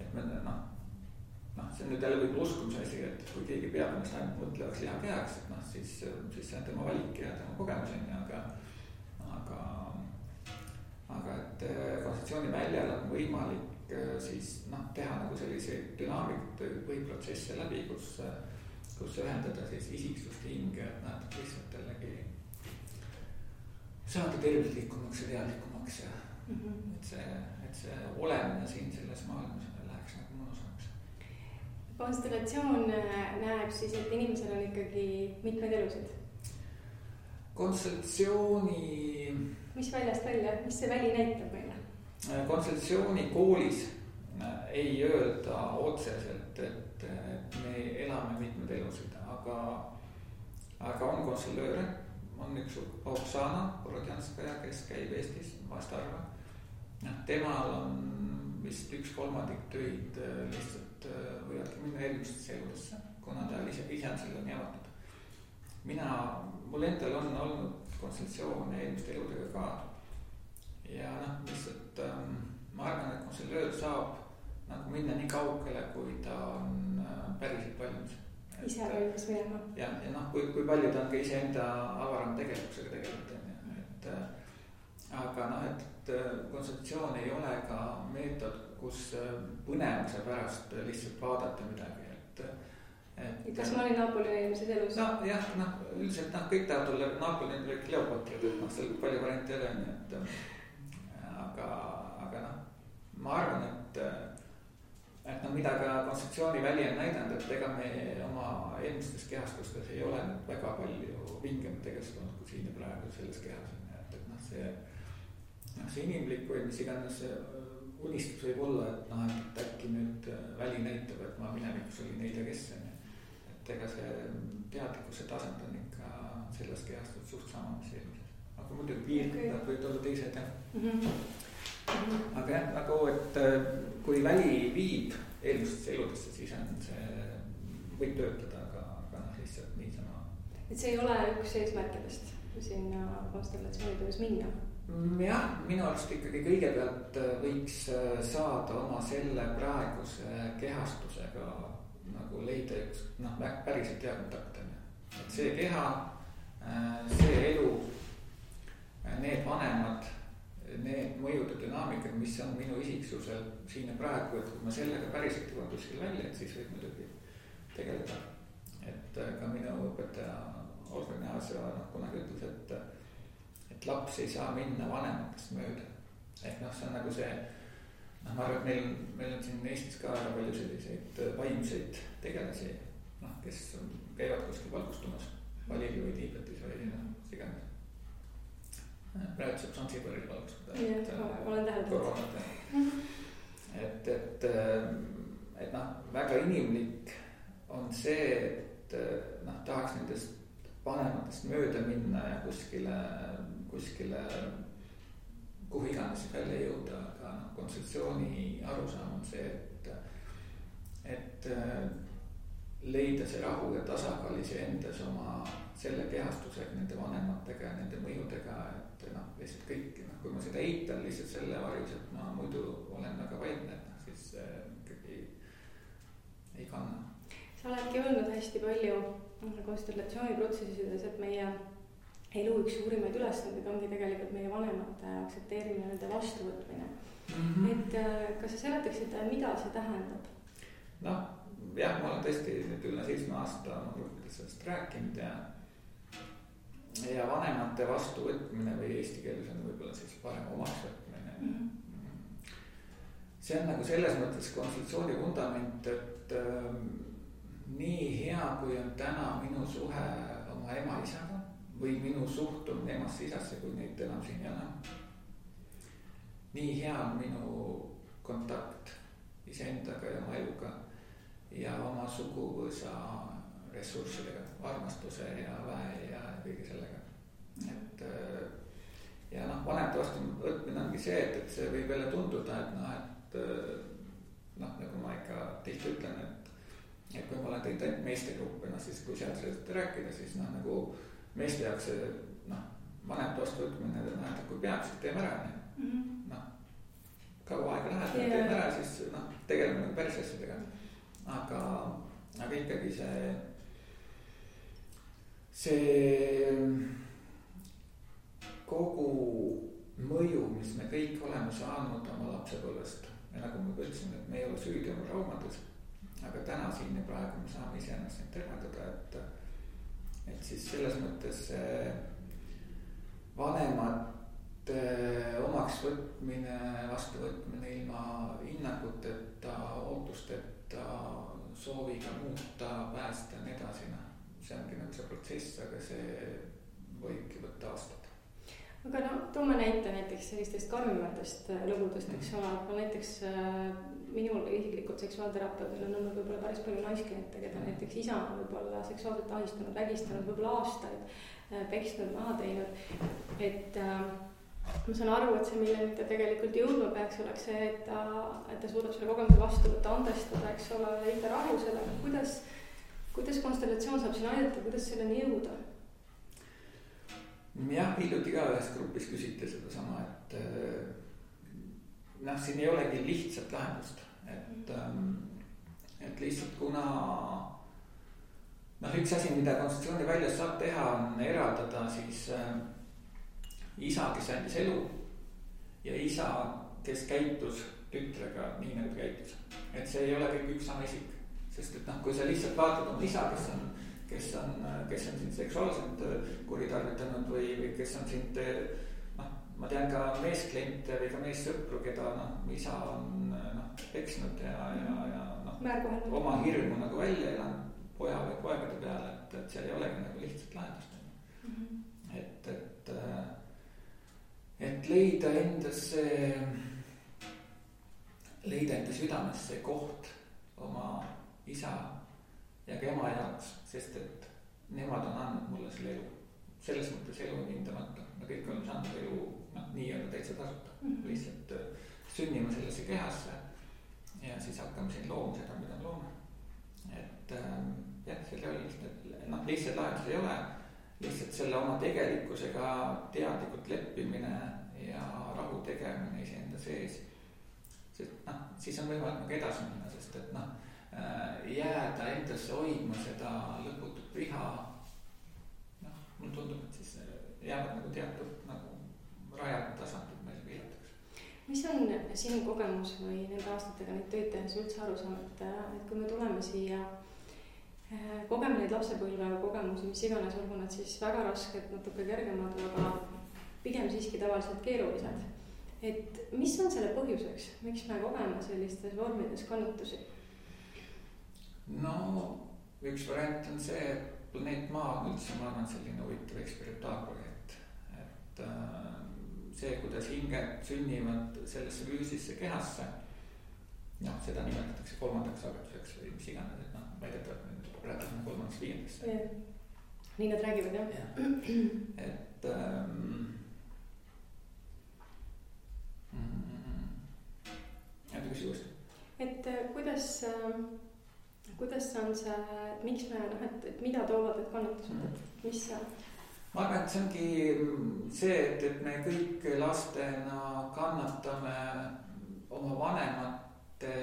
et me see on nüüd jälle võib-olla uskumise asi, et kui keegi peab ennast ainult mõtlevaks lihakehaks, et siis see on tema valik ja tema kogemus aga et kontseptsiooni väljal on võimalik siis teha nagu selliseid dünaamikaid või protsesse läbi, kus ühendada siis isiksust hinge, et lihtsalt jällegi saada tervislikumaks ja teadlikumaks ja et see olemine siin selles maailmas läheks nagu mõnusamaks. Konstellatsioon näeb siis, et inimesel on ikkagi mitmed elusid. Konstellatsiooni... Mis väljast välja, mis see väli näitab meile? Konstellatsiooni koolis ei öelda otseselt, et me elame mitmed elusid, aga on konstellööre. On üks Oksana Borodjanskaja, kes käib Eestis vast harva. Temal on vist 1/3 töid lihtsalt võivadki minna eelmistesse eludesse, kuna ta ise on selle nii avatud. Mul endal on olnud konstellatsioone eelmiste eludega ka. Ja lihtsalt ma arvan, et konstellöör saab nagu minna nii kaugele, kui ta on päriselt valmis. Ise valmis minema. Ja kui palju ta on ka iseenda avaram tegelikkusega tegelikult. Aga et kontseptsioon ei ole ka meetod, kus põnevuse pärast lihtsalt vaadata midagi. Kas ma olin Naapoli eelmises elus? Üldiselt kõik tahavad olla Naapoli või Kleopatrid, et seal palju variante ei ole. Aga ma arvan, et mida ka kontseptsiooni väli on näidanud, et ega me oma eelmistes kehastustes ei ole väga palju vingemad tegestunud kui siin ja praegu selles kehas. See inimlik või mis iganes unistus võib olla, et äkki nüüd väli näitab, et ma minevikus oli neid ja kes on. Et ega see teadlikkuse tasand on ikka selles kehastud suht sama, mis eelmises. Aga muidugi piirkonnad võid olla teised. Aga nagu, et kui väli viib eelmistesse eludesse, siis on see võib töötada, aga lihtsalt niisama. Et see ei ole üks eesmärkidest sinna konstellatsioonitöös minna? Jah, minu arust ikkagi kõigepealt võiks saada oma selle praeguse kehastusega nagu leida üks päriselt hea kontakt. Et see keha, see elu, need vanemad, need mõjude dünaamikad, mis on minu isiksusel siin ja praegu, et kui ma sellega päriselt jõuan kuskil välja, et siis võib muidugi tegeleda. Et ka minu õpetaja Olga Gnaasio kunagi ütles, et laps ei saa minna vanematest mööda. Ehk see on nagu see, ma arvan, et meil on siin Eestis ka väga palju selliseid vaimseid tegelasi, kes käivad kuskil valgustumas, Balili või Tiibetis või siganes. Praegu saab Sansibaril valgustada. Olen täheldanud. Et väga inimlik on see, et tahaks nendest vanematest mööda minna ja kuskile kuhu iganes välja jõuda, aga kontseptsiooni arusaam on see, et leida see rahu ja tasakaal iseendas oma selle kehastusega, nende vanematega ja nende mõjudega, et lihtsalt kõik, kui ma seda eitan lihtsalt selle varjus, et ma muidu olen väga vaidne, et siis ikkagi ei kanna. Sa oledki öelnud hästi palju konstellatsiooniprotsessides, et meie elu üks suurimaid ülesandeid ongi tegelikult meie vanemate aktsepteerimine, nende vastuvõtmine. Et kas sa seletaksid, mida see tähendab? Jah, ma olen tõesti nüüd üle 7 aasta oma gruppides sellest rääkinud ja vanemate vastuvõtmine või eesti keeles on võib-olla siis parem omaksvõtmine. See on nagu selles mõttes konstellatsiooni vundament, et nii hea, kui on täna minu suhe oma ema-isaga või minu suhtumine emasse-isasse, kui neid enam siin ei ole. Nii hea on minu kontakt iseendaga ja oma eluga ja oma suguvõsa ressurssidega, armastuse ja väe ja kõige sellega. Et ja vanemate vastuvõtmine ongi see, et see võib jälle tunduda, et nagu ma ikka tihti ütlen, et kui ma olen teinud ainult meestegruppe, siis kui sealt sellest rääkida, siis nagu meeste jaoks see vanemate vastuvõtmine tähendab, kui peab, siis teeme ära. Kaua aega läheb, teeme ära, siis tegeleme päris asjadega. Aga ikkagi see kogu mõju, mis me kõik oleme saanud oma lapsepõlvest ja nagu ma ütlesin, et me ei ole süüdi oma traumades, aga täna siin ja praegu me saame iseennast neid tervendada, et siis selles mõttes vanemate omaksvõtmine, vastuvõtmine ilma hinnanguteta, ootusteta, sooviga muuta, päästa ja nii edasi, see ongi nagu see protsess, aga see võibki võtta aastat. Aga toome näite näiteks sellistest karmimatest lõbudest, eks ole, aga näiteks minul isiklikult seksuaalterapeudil on olnud võib-olla päris palju naiskliente, keda näiteks isa on võib-olla seksuaalselt ahistanud, vägistanud võib-olla aastaid, peksnud, maha teinud, et ma saan aru, et see, milleni ta tegelikult jõudma peaks, oleks see, et ta suudab selle kogemuse vastu võtta, andestada, eks ole, leida rahu sellega. Kuidas konstellatsioon saab siin aidata, kuidas selleni jõuda? Jah, hiljuti ka ühes grupis küsiti seda sama, et siin ei olegi lihtsat lahendust, et lihtsalt kuna üks asi, mida konstellatsiooni väljas saab teha, on eraldada siis isa, kes andis elu ja isa, kes käitus tütrega nii nagu käitus. Et see ei ole kõik üks sama isik, sest et kui sa lihtsalt vaatad oma isa, kes on sind seksuaalselt kuritarvitanud või kes on sind, ma tean ka meeskliente või ka meessõpru, keda isa on peksnud ja oma hirmu nagu välja elanud poja või poegade peale, et seal ei olegi nagu lihtsalt lahendust. Et leida enda südamesse koht oma isa ja ka ema jaoks, sest et nemad on andnud mulle selle elu. Selles mõttes elu on hindamata. Me kõik oleme saanud elu nii-öelda täitsa tasuta. Lihtsalt sünnime sellesse kehasse ja siis hakkame siin looma seda, mida me loome. Et selle lihtsalt lahendus ei ole. Lihtsalt selle oma tegelikkusega teadlikult leppimine ja rahu tegemine iseenda sees. Sest siis on võimalik nagu edasi minna, sest et jääda endasse hoidma seda lõputut viha. Mulle tundub, et siis jäävad nagu teatud rajad tasandid meil piiratakse. Mis on sinu kogemus või nende aastatega neid tööd tehes üldse aru saanud, et kui me tuleme siia, kogeme neid lapsepõlve kogemusi, mis iganes, olgu nad siis väga rasked, natuke kergemad, aga pigem siiski tavaliselt keerulised. Et mis on selle põhjuseks, miks me kogeme sellistes vormides kannatusi? Üks variant on see, et planeet Maa on üldse, ma arvan, selline huvitav eksperimentaalprojekt. Et see, kuidas hinged sünnivad sellesse füüsisse kehasse, seda nimetatakse kolmandaks sageduseks või mis iganes, et väidetavalt räägime kolmandaks viiendaks. Nii nad räägivad, jah? Et küsi uuesti. Et kuidas on see, et miks me et mida toovad need kannatused, et mis see? Ma arvan, et see ongi see, et me kõik lastena kannatame oma vanemate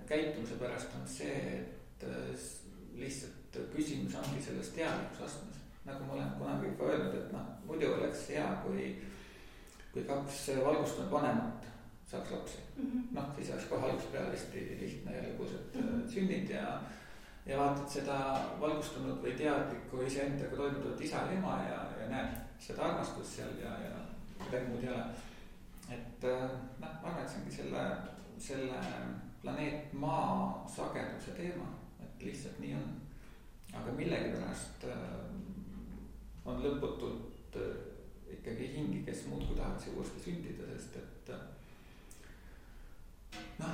käitumise pärast on see, et lihtsalt küsimus ongi selles teadlikkusastmes. Nagu ma olen kunagi ka öelnud, et muidu oleks hea, kui 2 valgustunud vanemat saaks lapsi. Siis oleks kohe algusest peale hästi lihtne ja lõbus, et sünnid ja vaatad seda valgustunud või teadlikku iseendaga toimuvat isa ja ema ja näed seda armastust seal ja midagi muud ei ole. Et ma arvan, et see ongi selle planeet Maa sageduse teema, et lihtsalt nii on. Aga millegipärast on lõputult ikkagi hingi, kes muudkui tahaks uuesti sündida, sest et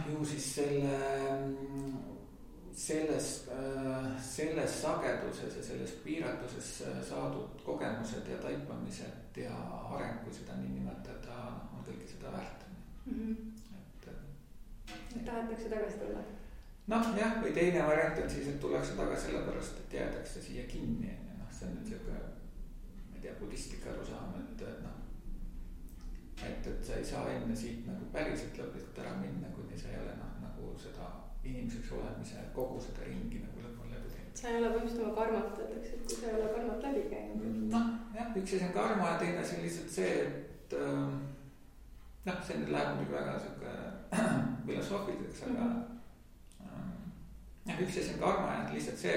ju siis selles sageduses ja selles piiratuses saadud kogemused ja taipamised ja areng, kui seda nii nimetada, on kõike seda väärt. Et tahetakse tagasi tulla? Jah, või teine variant on siis, et tullakse tagasi sellepärast, et jäädakse siia kinni. See on nüüd selline, ma ei tea, buddhistlik arusaam, et sa ei saa enne siit nagu päriselt lõplikult ära minna, kuni sa ei ole nagu seda inimeseks olemise kogu seda ringi nagu lõpuni läbi teinud. Sa ei ole põhimõtteliselt oma karmat, öeldakse, et kui sa ei ole karmat läbi käinud. Jah, üks asi on karma ja teine asi on lihtsalt see, et see nüüd läheb muidugi väga selline filosoofiliseks, aga üks asi on karma ja lihtsalt see,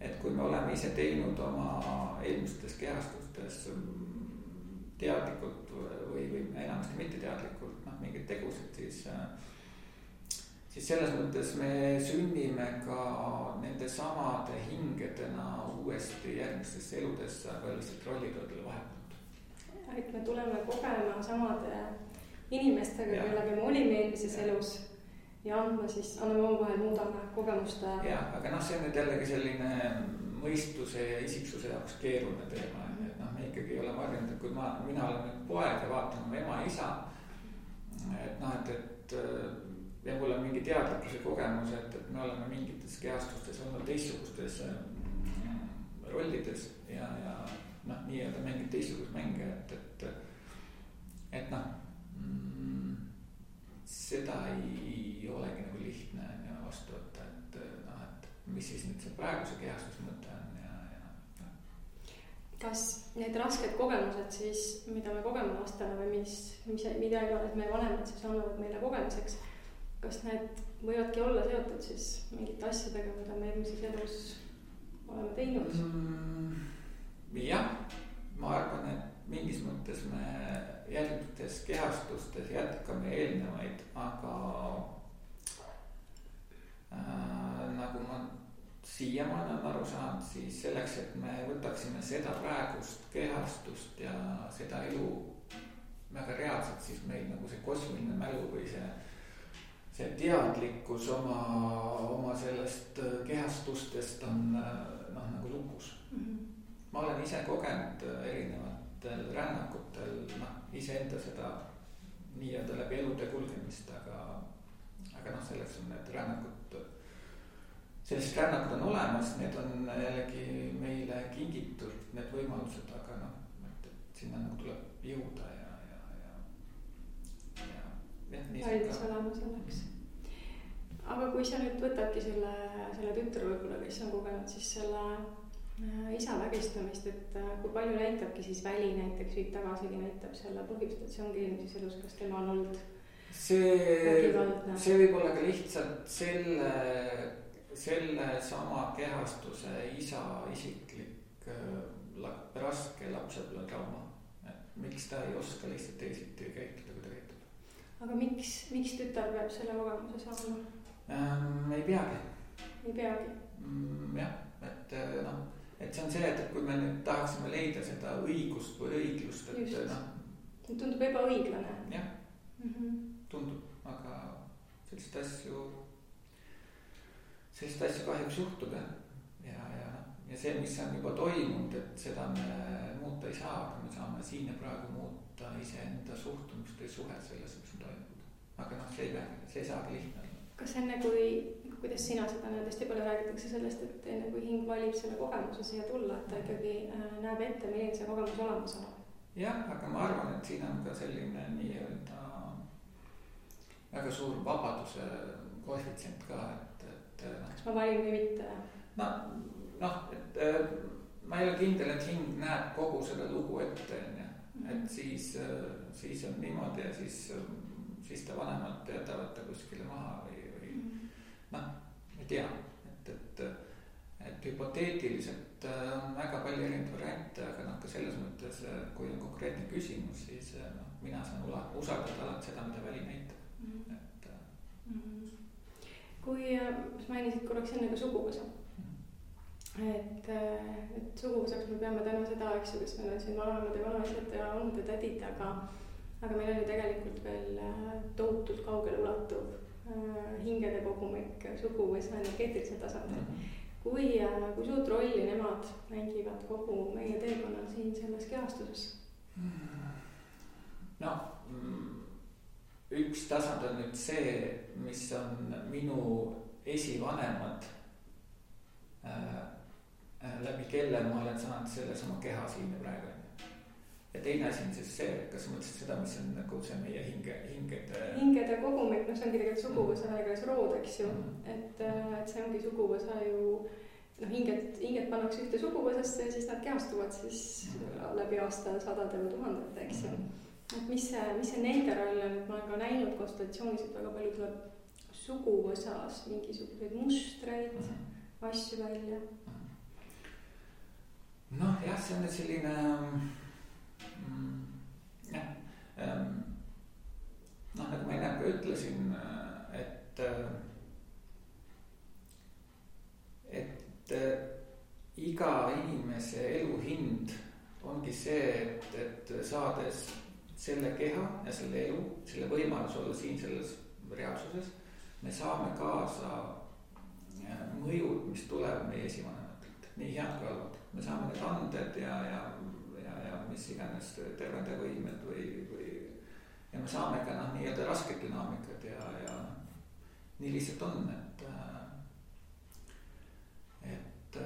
et kui me oleme ise teinud oma eelmistes kehastustes teadlikult või enamasti mitteteadlikult mingeid tegusid, siis selles mõttes me sünnime ka nende samade hingedena uuesti järgmistesse eludesse, aga lihtsalt rollid on talle vahepealt. Et me tuleme kogema samade inimestega, kellega me olime eelmises elus ja anname omavahel, muudame kogemuste. Jah, aga see on nüüd jällegi selline mõistuse ja isiksuse jaoks keeruline teema. Me ikkagi ei ole varjanud, et kui mina olen nüüd poeg ja vaatan oma ema ja isa, ja mul on mingi teadlikkuse kogemus, et me oleme mingites kehastustes olnud teistsugustes rollides ja nii-öelda mängid teistsugust mänge, et seda ei olegi nagu lihtne vastu võtta, et mis siis nüüd see praeguse kehastuse mõte on Kas need rasked kogemused siis, mida me kogeme lastena või mida iganes meie vanemad siis annavad meile kogemuseks, kas need võivadki olla seotud siis mingite asjadega, mida me eelmises elus oleme teinud? Jah, ma arvan, et mingis mõttes me järgmises kehastustes jätkame eelnevaid, aga nagu ma siiamaani on aru saanud, siis selleks, et me võtaksime seda praegust kehastust ja seda elu väga reaalselt, siis meil nagu see kosmiline mälu või see teadlikkus oma sellest kehastustest on nagu lukus. Ma olen ise kogenud erinevatel rännakutel iseenda seda nii-öelda läbi elude kulgemist, aga selleks on need rännakud, sellised rännakud on olemas, need on jällegi meile kingitud, need võimalused, aga et sinna nagu tuleb jõuda ja valmis olema selleks. Aga kui sa nüüd võtadki selle tütre võib-olla, kes on kogenud siis selle isa vägistamist, et kui palju näitabki siis väli näiteks viib tagasigi näitab selle põhjust, et see ongi eelmises elus, kas tema on olnud vägivaldne? See võib olla ka lihtsalt selle sama kehastuse isa isiklik raske lapsepõlve trauma, et miks ta ei oska lihtsalt teisiti käituda, kui ta käitub. Aga miks tütar peab selle kogemuse saama? Ei peagi. Ei peagi? Jah, et see on see, et kui me nüüd tahaksime leida seda õigust või õiglust, et tundub ebaõiglane. Jah, tundub, aga sellist asju kahjuks juhtub ja see, mis on juba toimunud, et seda me muuta ei saa, aga me saame siin ja praegu muuta iseenda suhtumist või suhet selles, mis on toimunud. Aga see ei saagi lihtne. Kas enne, kuidas sina seda näed, hästi palju räägitakse sellest, et enne kui hing valib selle kogemuse siia tulla, et ta ikkagi näeb ette, milline see kogemus olemas on. Jah, aga ma arvan, et siin on ka selline nii-öelda väga suur vabaduse koefitsient ka, et kas ma valin või mitte? Et ma ei ole kindel, et hing näeb kogu seda lugu ette, et siis on niimoodi ja siis ta vanemad jätavad ta kuskile maha või ei tea, et hüpoteetiliselt on väga palju erinevaid variante, aga ka selles mõttes, kui on konkreetne küsimus, siis mina saan usaldada alati seda, mida väli näitab. Kui mainisid korraks enne ka suguvõsa, et suguvõsaks me peame täna seda, eks ju, kes meil on siin vanemad ja vanaisad ja olnud ja tädid, aga meil on ju tegelikult veel tohutult kaugele ulatuv hingede kogumik suguvõsa energeetilisel tasandil. Kui suurt rolli nemad mängivad kogu meie teekonnal siin selles kehastuses? Üks tasand on nüüd see, mis on minu esivanemad, läbi kelle ma olen saanud selles oma keha siin ja praegu. Ja teine asi on siis see, kas mõtlesid seda, mis on nagu see meie hingede kogumik, see ongi tegelikult suguvõsa ega rood, eks ju, et see ongi suguvõsa ju, hinged pannakse ühte suguvõsasse ja siis nad kehastuvad siis läbi aasta sadade või tuhandete, eks ju. Et mis see nende roll on, et ma olen ka näinud konsultatsioonis, et väga palju tuleb suguvõsas mingisuguseid mustreid, asju välja. Jah, see on selline nagu ma enne ka ütlesin, et iga inimese elu hind ongi see, et saades selle keha ja selle elu, selle võimalus olla siin selles reaalsuses, me saame kaasa mõjud, mis tuleb meie esivanematelt, nii head kui halvad. Me saame need anded ja mis iganes tervendavõimed ja me saame ka nii-öelda rasked dünaamikad ja nii lihtsalt on, et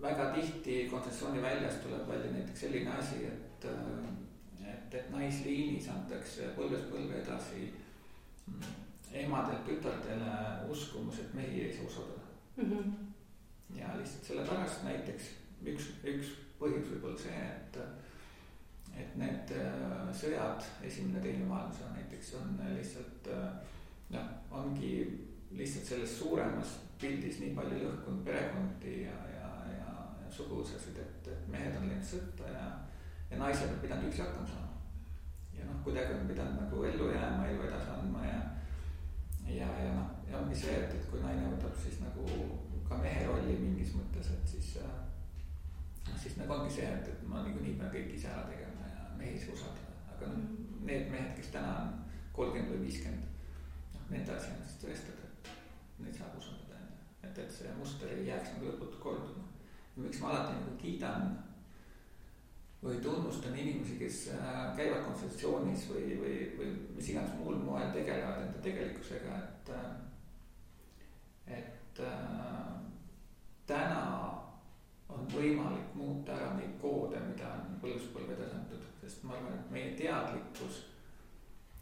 väga tihti kontsessiooni väljas tuleb välja näiteks selline asi, et naisliinis antakse põlvest põlve edasi emadelt tütardele uskumus, et mehi ei saa usaldada. Ja lihtsalt selle pärast näiteks üks põhjus võib olla see, et need sõjad, esimene teine maailmasõda näiteks on lihtsalt, ongi lihtsalt selles suuremas pildis nii palju lõhkunud perekondi ja suguvõsasid, et mehed on läinud sõtta ja naised on pidanud üksi hakkama saama. Ja kuidagi on pidanud nagu ellu jääma, elu edasi andma ja ongi see, et kui naine võtab siis nagu ka mehe rolli mingis mõttes, et siis nagu ongi see, et ma nii pean kõik ise ära tegema ja mehi ei saa usaldada. Aga need mehed, kes täna on 30 või 50, nende asi on siis tõestada, et neid saab usaldada. Et see muster ei jääks nagu lõputult korduma. Ja miks ma alati nagu kiidan või tunnustan inimesi, kes käivad konsultatsioonis või mis iganes muul moel tegelevad enda tegelikkusega, et täna on võimalik muuta ära neid koode, mida on põlvest-põlve tasandatud, sest ma arvan, et meie teadlikkus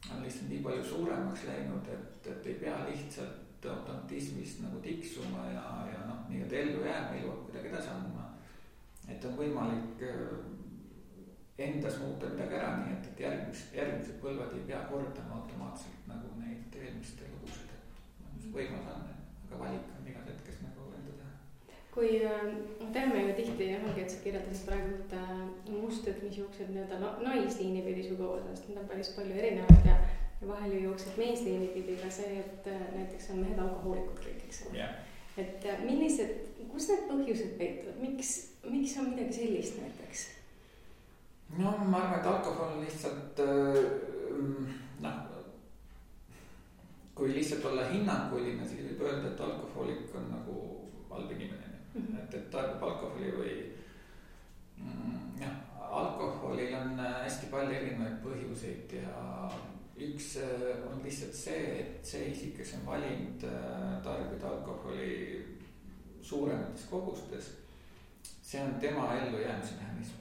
on lihtsalt nii palju suuremaks läinud, et ei pea lihtsalt automatismist nagu tiksuma ja nii-öelda ellu jääma, elu kuidagi edasi andma. Et on võimalik endas muuta midagi ära, nii et järgmised põlvad ei pea kordama automaatselt nagu neid eelmiste lugusid. Võimalus on, aga valik on igas hetkes nagu enda teha. Kui teeme ju tihti, et sa kirjeldasid praegu mustrid, mis jooksed naisliini pidi suguvõsast, need on päris palju erinevad ja vahel ju jooksed meesliini pidi ka see, et näiteks on mehed alkohoolikud kõik, eks ole. Et kus need põhjused peituvad, miks on midagi sellist näiteks? Ma arvan, et alkohol on lihtsalt, kui lihtsalt olla hinnanguline, siis võib öelda, et alkohoolik on nagu halb inimene. Et tarbib alkoholi või alkoholil on hästi palju erinevaid põhjuseid üks on lihtsalt see, et see isik, kes on valinud tarbida alkoholi suuremates kogustes, see on tema ellujäämise mehhanism.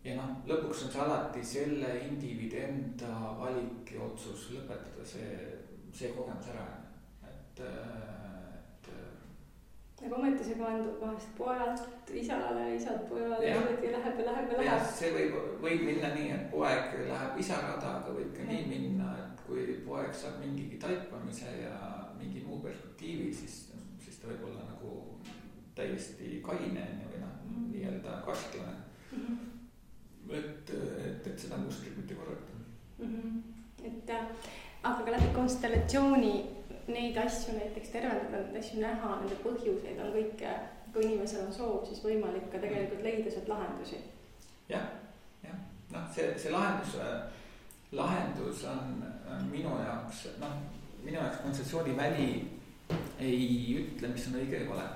Ja noh, lõpuks on see alati selle indiviidi enda valik ja otsus lõpetada see kogemus ära. Aga ometi see kandub vahest pojalt isale, isalt pojale ja läheb. Ja see võib minna nii, et poeg läheb isa rada, aga võib ka nii minna, et kui poeg saab mingigi taipamise ja mingi muu perspektiivi, siis ta võib olla nagu täiesti kaine või nii-öelda kastlane. Et seda mustrit mitte korrata. Aga ka läbi konstellatsiooni neid asju näiteks tervendada, neid asju näha, nende põhjuseid on kõik, kui inimesel on soov, siis võimalik ka tegelikult leida sealt lahendusi. Jah. Noh, see lahendus on minu jaoks kontseptsiooni väli ei ütle, mis on õige ja vale.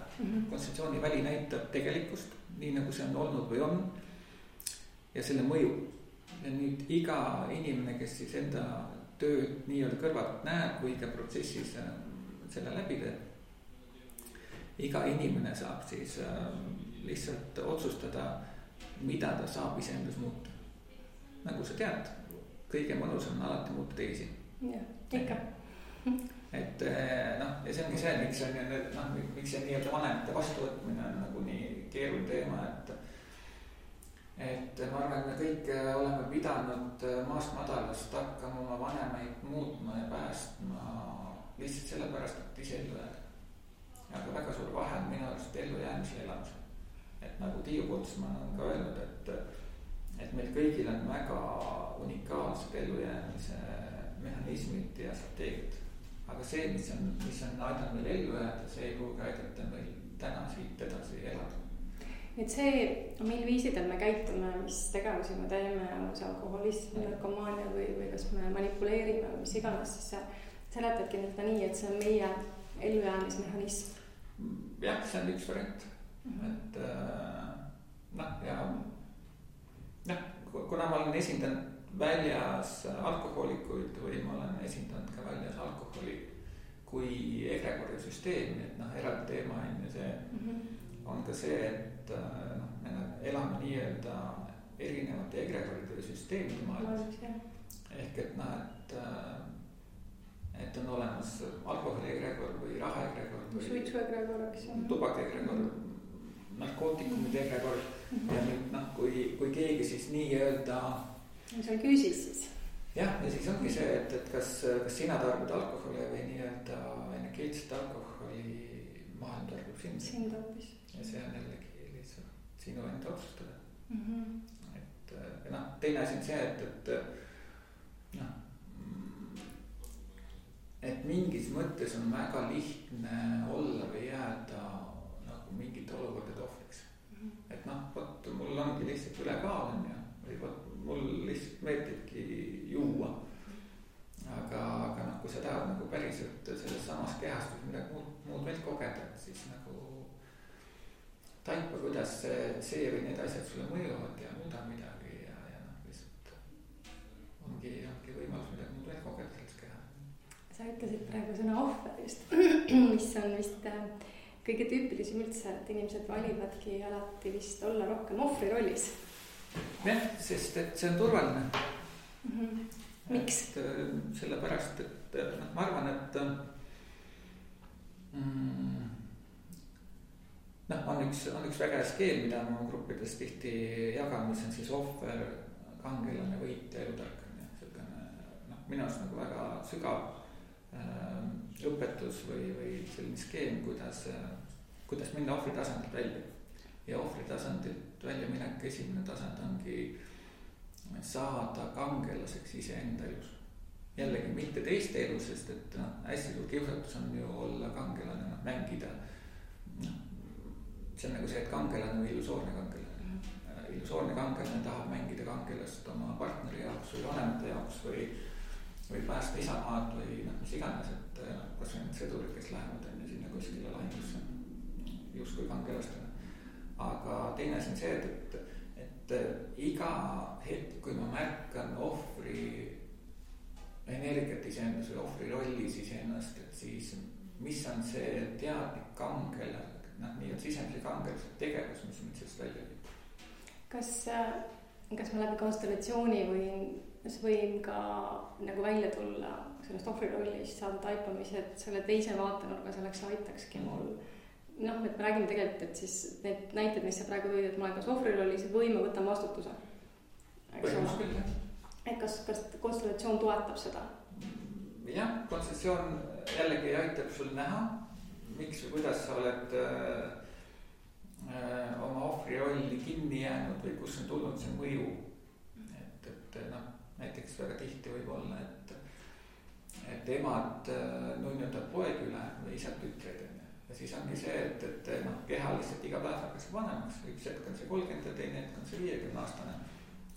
Kontseptsiooni väli näitab tegelikkust, nii nagu see on olnud või on, ja selle mõju. Ja nüüd iga inimene, kes siis enda tööd nii-öelda kõrvalt näeb, kui ka protsessis selle läbi teeb, iga inimene saab siis lihtsalt otsustada, mida ta saab iseendas muuta. Nagu sa tead, kõige mõnus on alati muuta teisi. Jah, ikka. Et ja see ongi see, miks see nii-öelda vanemate vastuvõtmine on nagu nii keeruline teema, et ma arvan, et me kõik oleme pidanud maast madalast hakkama oma vanemaid muutma ja päästma lihtsalt sellepärast, et ise ellu jääda. Aga väga suur vahe on minu arust ellujäämise ja elamise. Et nagu Tiiu Putsman on ka öelnud, et meil kõigil on väga unikaalsed ellujäämise mehhanismid ja strateegiad. Aga see, mis on aidanud meil ellu jääda, see ei pruugi aidata meil täna siit edasi elada. Et see, mil viisidel me käitume, mis tegevusi me teeme, on see alkoholism, narkomaania või kas me manipuleerime või mis iganes, siis sa seletadki seda nii, et see on meie ellujäämismehhanism. Jah, see on üks variant. Et kuna ma olen esindanud väljas alkohoolikuid või ma olen esindanud ka väljas alkoholi kui egregori süsteemi, et eraldi teema on ja see on ka see, et me elame nii-öelda erinevate egregoride süsteemide maailmas. Ehk et on olemas alkoholi egregor või raha egregor või suitsu egregor, tubak egregor, narkootikumide egregor. Ja nüüd kui keegi siis nii-öelda mis on küüsis siis? Jah, ja siis ongi see, et kas sina tarbid alkoholi või nii-öelda energeetset alkoholi maailm tarbib sind hoopis. Ja see on jällegi lihtsalt sinu enda otsustada. Et teine asi on see, et mingis mõttes on väga lihtne olla või jääda nagu mingite olukordade ohvriks. Et võt, mul ongi lihtsalt ülekaal on ja või võt, mul lihtsalt meeldibki juua. Aga kui sa tahad nagu päriselt selles samas kehastus midagi muud veel kogeda, siis nagu taipa, kuidas see või need asjad sulle mõjuvad ja muuda midagi ja lihtsalt ongi võimalus midagi muud veel kogeda selles keha. Sa ütlesid praegu sõna ohver just, mis on vist kõige tüüpilisem üldse, et inimesed valivadki alati vist olla rohkem ohvri rollis. Jah, sest et see on turvaline. Miks? Sellepärast, et ma arvan, et on üks väga hea skeem, mida ma gruppides tihti jagan, mis on siis ohver, kangelane, võitja, elutark. Minu arust nagu väga sügav õpetus või selline skeem, kuidas minna ohvri tasandilt välja. Ja ohvri tasandilt välja minek, esimene tasand ongi saada kangelaseks iseenda elus. Jällegi mitte teiste elus, sest et hästi suur kiusatus on ju olla kangelane, mängida. See on nagu see, et kangelane või illusoorne kangelane. Illusoorne kangelane tahab mängida kangelast oma partneri jaoks või vanemate jaoks või päästa isamaad või mis iganes, et kas või need sõdurid, kes lähevad sinna kuskile lahingusse just kui kangelastena. Aga teine asi on see, et et iga hetk, kui ma märkan ohvri energiat iseendas või ohvri rollis iseennast, et siis mis on see teadlik kangel, nii-öelda sisemise kangelise tegevus, mis mind sellest välja viib. Kas ma läbi konstellatsiooni võin ka nagu välja tulla sellest ohvri rollist, saada taipamise, et selle teise vaatenurga selleks aitakski mul. Et me räägime tegelikult, et siis need näited, mis sa praegu tõid, et ma olen kas ohvri rollis või ma võtan vastutuse. Et kas konstellatsioon toetab seda? Jah, konstellatsioon jällegi aitab sul näha, miks või kuidas sa oled oma ohvri rolli kinni jäänud või kus on tulnud see mõju. Et näiteks väga tihti võib olla, et emad nunnutavad poeg üle või isad tütreid. Ja siis ongi see, et keha lihtsalt iga päev hakkas vanemaks. Üks hetk on see 30 ja teine hetk on see 50 aastane.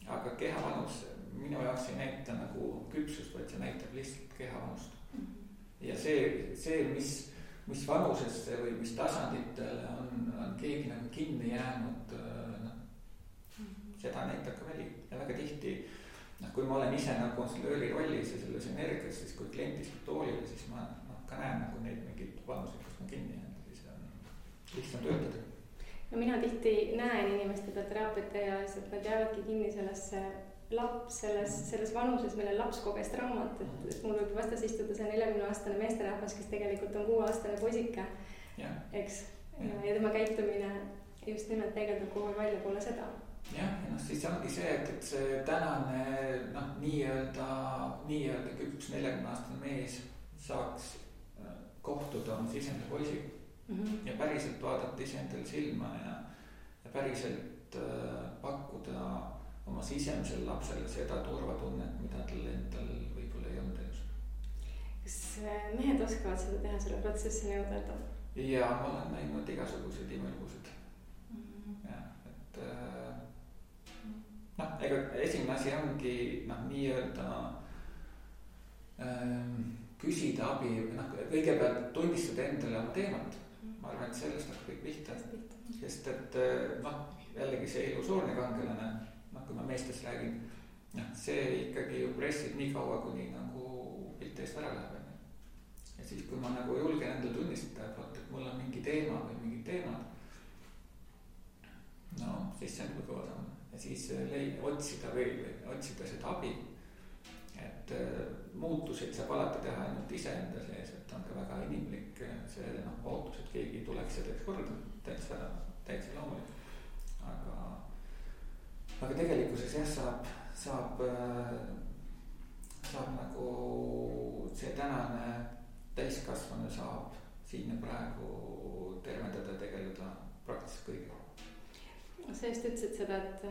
Aga keha vanus minu jaoks ei näita nagu küpsust, vaid see näitab lihtsalt keha vanust. Ja see mis vanusesse või mis tasanditele on keegi nagu kinni jäänud, seda näitab ka väli. Ja väga tihti, kui ma olen ise nagu konstellööri rollis ja selles energias, siis kui klient istub toolile, siis ma ka näen nagu neid mingid vanused, kus ma kinni jäänud, siis on lihtsam töötada. No mina tihti näen inimeste peal teraapiate ja et nad jäävadki kinni selles vanuses, mille laps koges traumat, et mul võib vastas istuda see 40-aastane meesterahvas, kes tegelikult on 6-aastane poisike, eks? Ja tema käitumine just nimelt peegeldab kogu aeg välja poole seda. Jah, ja siis ongi see, et see tänane nii-öelda küps 40-aastane mees saaks kohtuda oma sisemise poisiga ja päriselt vaadata iseendale silma ja päriselt pakkuda oma sisemisele lapsele seda turvatunnet, mida tal endal võib-olla ei olnud elus. Kas mehed oskavad seda teha, selle protsessi nõudada? Ja ma olen näinud igasuguseid imelugusid. Ega esimene asi ongi nii-öelda küsida abi, kõigepealt tunnistada endale oma teemat. Ma arvan, et sellest on kõik pihta. Sest et jällegi see illusoorne kangelane, kui ma meestest räägin, see ikkagi ju pressib nii kaua, kuni nagu pilt eest ära läheb. Ja siis, kui ma nagu julgen endale tunnistada, et mul on mingi teema või mingid teemad, siis see on kõige odam. Ja siis otsida seda abi. Et muutuseid saab alati teha ainult iseenda sees, et on ka väga inimlik see ootus, et keegi tuleks ja teeks korda, täitsa loomulik. Aga tegelikkuses saab nagu see tänane täiskasvanu saab siin ja praegu tervendada ja tegeleda praktiliselt kõigega. Sa just ütlesid seda, et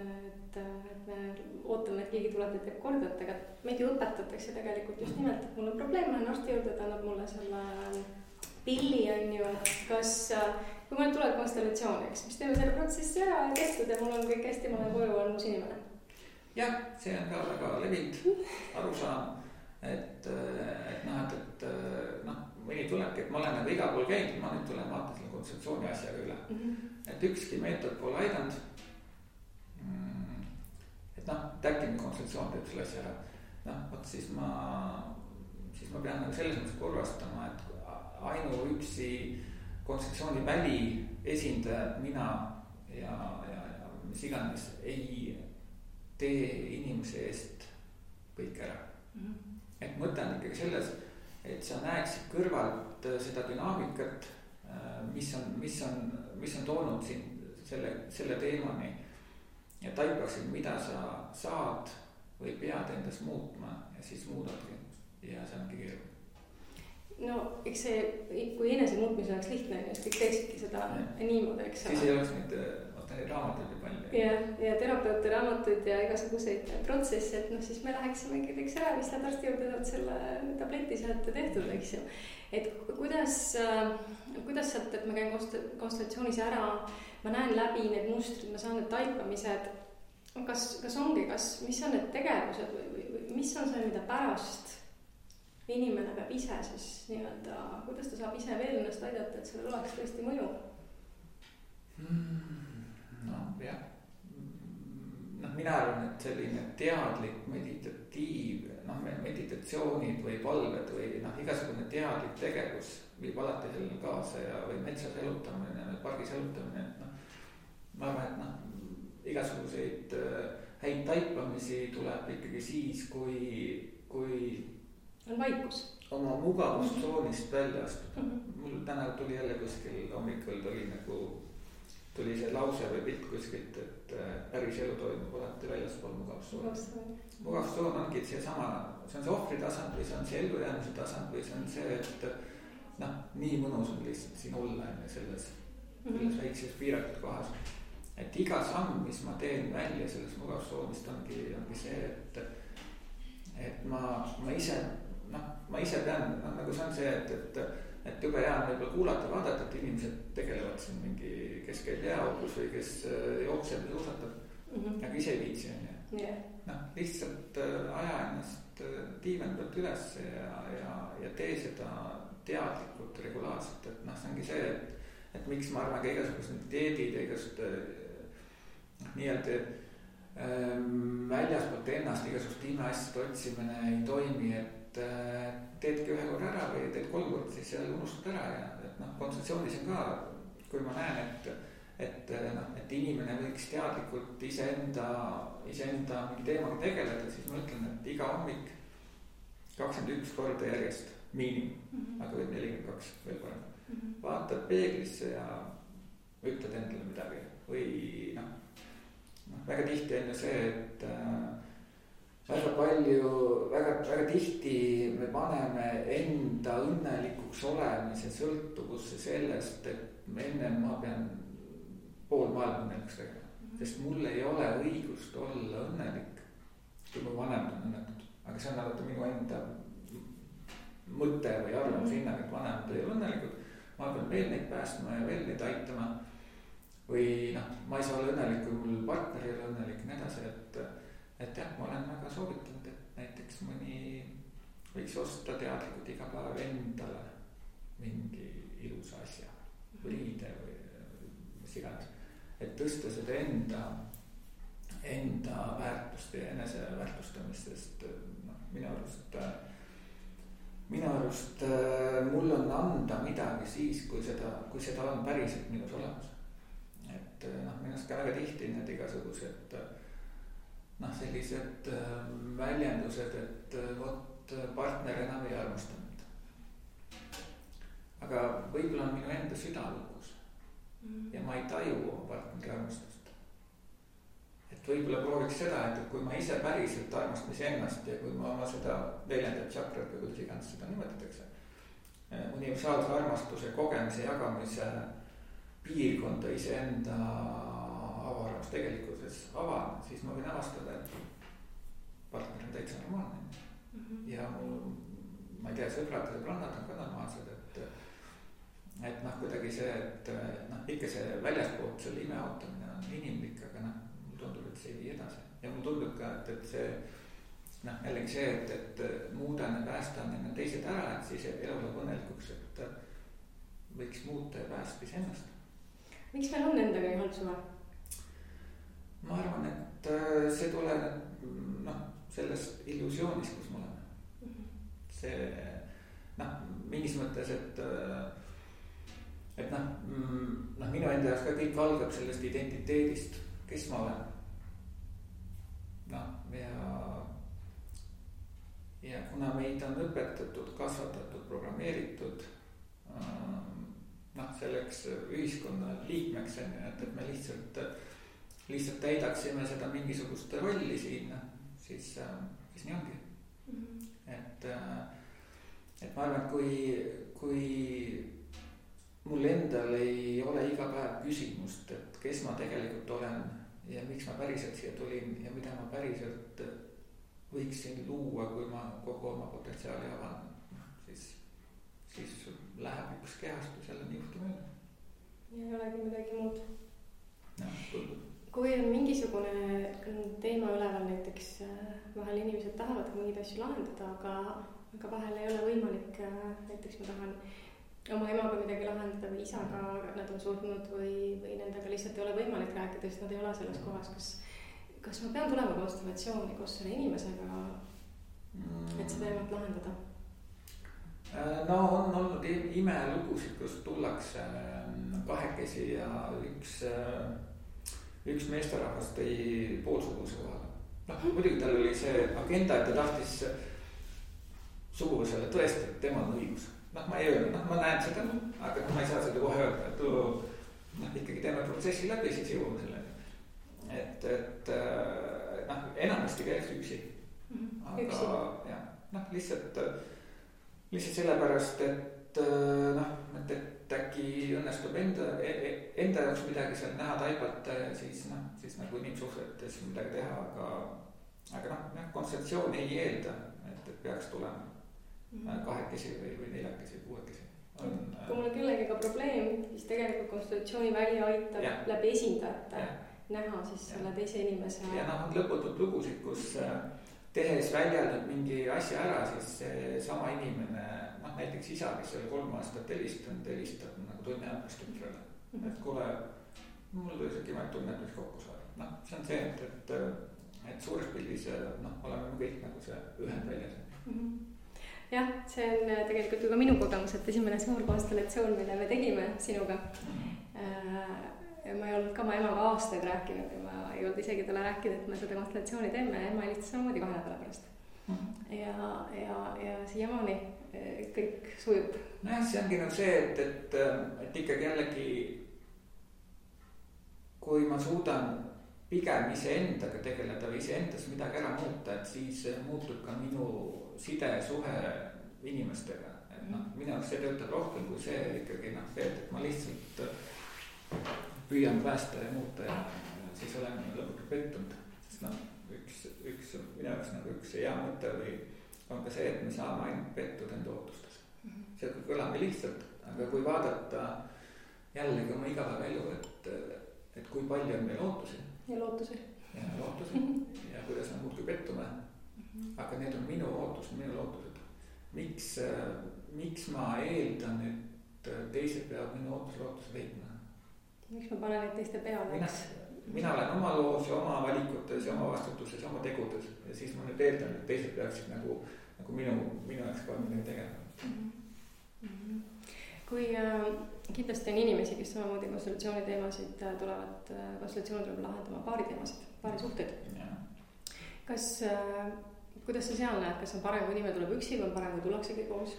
me ootame, et keegi tuleb ja teeb korda, aga meid ju õpetatakse tegelikult just nimelt, et mul on probleem, ma olen arsti juurde, ta annab mulle selle pilli, on ju, kui ma nüüd tuleb konstellatsiooniks, mis teeme selle protsessi ära ja tehtud ja mul on kõik hästi, ma olen koju, on uus inimene. Jah, see on ka väga levinud arusaam, et mõni tulebki, et ma olen nagu iga pool käinud, ma nüüd tulen vaatan selle konstellatsiooni asjaga üle. Et ükski meetod pole aidanud. Et äkki konstellatsioon teeb selle asja ära. Siis ma pean nagu selles mõttes korrastama, et ainuüksi konstellatsiooni väli esindajad, mina ja mis iganes ei tee inimese eest kõik ära. Et mõte on ikkagi selles, et sa näeksid kõrvalt seda dünaamikat, mis on toonud sind selle teemani ja taipaksid, mida sa saad või pead endas muutma ja siis muudadki ja see ongi keeruline. No eks see, kui enese muutmise oleks lihtne, siis kõik teeksidki seda niimoodi, eks. Siis ei oleks neid raamatuid ja palju. Ja terapeute raamatuid ja igasuguseid protsesse, et siis me läheksimegi teeks ära, mis läheb arsti juurde, saad selle tableti sealt tehtud, eks ju. Et kuidas sealt, et ma käin konstellatsioonis ära, ma näen läbi need mustrid, ma saan need taipamised, kas mis on need tegevused või mis on see, mida pärast inimene peab ise siis nii-öelda, kuidas ta saab ise veel ennast aidata, et sellel oleks tõesti mõju? Jah, mina arvan, et selline teadlik meditatsioonid või palved või igasugune teadlik tegevus viib alati sellele kaasa või metsas elutamine, pargis elutamine, et ma arvan, et igasuguseid häid taipamisi tuleb ikkagi siis, kui on vaikus. Oma mugavustsoonist välja astuda. Mul täna tuli jälle kuskil hommikul tuli see lause või pilt kuskilt, et päris elu toimub alati väljaspool mugavustsooni. Mugavustsoon ongi seesama, see on see ohvritasand või see on see ellujäämise tasand või see on see, et nii mõnus on lihtsalt siin olla selles väikses piiratud kohas. Et iga samm, mis ma teen välja sellest mugavustsoonist ongi see, et ma ise pean, nagu see on see, et jube hea on võib-olla kuulata, vaadata, et inimesed tegelevad siin mingi, kes käib jääaugus või kes jookseb ja suusatab, aga ise ei viitsi on ju. Lihtsalt aja ennast diivani pealt üles ja tee seda teadlikult, regulaarselt, et see ongi see, et miks ma arvan ka igasugused dieedid ja igasugused nii-öelda väljaspoolt ennast igasugust imeasjade otsimine ei toimi, et teedki ühe korra ära või teed 3 korda, siis seal unustad ära ja konsultatsioonis on ka, kui ma näen, et inimene võiks teadlikult iseenda mingi teemaga tegeleda, siis ma ütlen, et iga hommik 21 korda järjest miinimum, aga võib 42 veel parem. Vaatad peeglisse ja ütled endale midagi või väga tihti on ju see, et väga tihti me paneme enda õnnelikuks olemise sõltuvusse sellest, et enne ma pean pool maailma õnnelikuks tegema, sest mul ei ole õigust olla õnnelik, kui mu vanemad on õnnetud, aga see on alati minu enda mõte või arvamus hinnang, et vanemad ei ole õnnelikud, ma pean veel neid päästma ja veel neid aitama või ma ei saa olla õnnelik, kui mul partner ei ole õnnelik ja nii edasi, et jah, ma olen väga soovitanud, et näiteks mõni võiks osta teadlikult iga päev endale mingi ilusa asja või riide või mis iganes, et tõsta seda enda väärtust ja eneseväärtustamist, sest minu arust mul on anda midagi siis, kui seda on päriselt minus olemas. Et minust ka väga tihti need igasugused sellised väljendused, et vot partner enam ei armasta mind. aga võib-olla on minu enda süda lukus ja ma ei taju oma partneri armastust. Et võib-olla prooviks seda, et kui ma ise päriselt armastan iseennast ja kui ma oma seda neljandat tšakrat või kuidas iganes seda nimetatakse, universaalse armastuse kogemise jagamise piirkonda iseenda avaras tegelikkuses avan, siis ma võin avastada, et partner on täitsa normaalne. Ja ma ei tea, sõbrad ja sõbrannad on ka normaalsed, et kuidagi see, et ikka see väljaspoolt selle ime ootamine on inimlik, aga mulle tundub, et see ei vii edasi. Ja mulle tundub ka, et see jällegi see, et muudan ja päästan enne teised ära, et siis elu läheb õnnelikuks, et võiks muuta ja päästa iseennast. Miks meil on endaga nii halb suhe? Ma arvan, et see tuleneb sellest illusioonist, kus me oleme. See mingis mõttes, et minu enda jaoks ka kõik algab sellest identiteedist, kes ma olen. Ja kuna meid on õpetatud, kasvatatud, programmeeritud selleks ühiskonna liikmeks, et me lihtsalt täidaksime seda mingisugust rolli siin, siis nii ongi. Et ma arvan, et kui mul endal ei ole iga päev küsimust, et kes ma tegelikult olen ja miks ma päriselt siia tulin ja mida ma päriselt võiksin luua, kui ma kogu oma potentsiaali avan, siis läheb üks kehastus jälle niihti mööda. Ja ei olegi midagi muud. Kui on mingisugune teema üleval, näiteks vahel inimesed tahavad mingeid asju lahendada, aga vahel ei ole võimalik, näiteks ma tahan oma emaga midagi lahendada või isaga, nad on surnud või nendega lihtsalt ei ole võimalik rääkida, sest nad ei ole selles kohas, kas ma pean tulema konstellatsiooni koos selle inimesega, et seda teemat lahendada? No on olnud imelugusid, kus tullakse kahekesi ja üks meesterahvas tõi poolsuguse kohale. Muidugi tal oli see agenda, et ta tahtis suguvõsale tõestada, et temal on õigus. Ma ei öelnud, ma näen seda, aga ma ei saa seda kohe öelda, et ikkagi teeme protsessi läbi, siis jõuame selleni. Et enamasti käiks üksi. Aga jah, lihtsalt sellepärast, et äkki õnnestub enda jaoks midagi seal näha, taibata ja siis nagu inimsuhtletes midagi teha, aga kontseptsioon ei eelda, et peaks tulema kahekesi või neljakesi, kuuekesi. Kui mul on kellegiga probleem, siis tegelikult konstellatsiooni välja aitab läbi esindajate näha siis selle teise inimese. Ja on lõputult lugusid, kus tehes väljaldab mingi asja ära, siis sama inimene, näiteks isa, kes oli 3 aastat helistab nagu tunni ajast tütrele. Et kuule, mul tuli see kimaid tunnet, mis kokku saada. See on see, et suures pildis oleme kõik nagu see ühend väljas. Jah, see on tegelikult ju ka minu kogemus, et esimene suur konstellatsioon, mille me tegime sinuga. Ma ei olnud ka oma emaga aastaid rääkinud ja ma ei olnud isegi talle rääkinud, et me seda konstellatsiooni teeme ja ema helistas samamoodi 2 nädala pärast. Ja siiamaani kõik sujub. Nojah, see ongi nagu see, et ikkagi jällegi kui ma suudan pigem iseendaga tegeleda või iseendas midagi ära muuta, et siis muutub ka minu sidesuhe inimestega. Minu jaoks see töötab rohkem kui see ikkagi et ma lihtsalt püüan päästa ja muuta ja siis olen lõpuks pettunud. Sest üks minu jaoks nagu üks hea mõte või on ka see, et me saame ainult pettuda enda ootustes. See kõlab lihtsalt, aga kui vaadata jällegi oma igapäevaelu, et kui palju on meil ootusi. Ja lootusi. Ja kuidas me muudki pettume. Aga need on minu ootused, minu lootused. Miks ma eeldan, et teised peavad minu lootused leidma? Miks ma panen neid teiste peale? Mina olen oma loos ja oma valikutes ja oma vastutuses ja oma tegudes. Ja siis ma nüüd eeldan, et teised peaksid nagu minu jaoks ka midagi tegema. Kui kindlasti on inimesi, kes samamoodi konstellatsiooni teemasid tulevad, konstellatsioon tuleb lahendama paari teemasid, paari suhteid. Kuidas sa seal näed, kas on parem, kui inimene tuleb üksi või on parem, kui tullaksegi koos?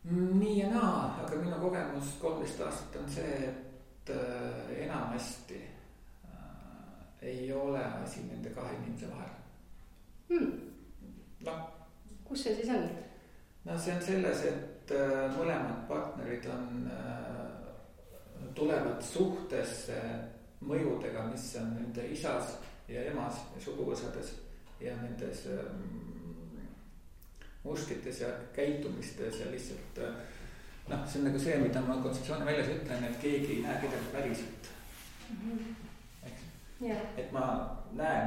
Nii ja naa, aga minu kogemus 13 aastat on see, et enamasti ei ole asi nende 2 inimese vahel. Kus see siis on? See on selles, et mõlemad partnerid tulevad suhtesse mõjudega, mis on nende isas ja emas ja suguvõsades ja nendes mustrites ja käitumistes ja lihtsalt see on nagu see, mida ma kontseptsiooni väljas ütlen, et keegi ei näe kedagi päriselt. Et ma näen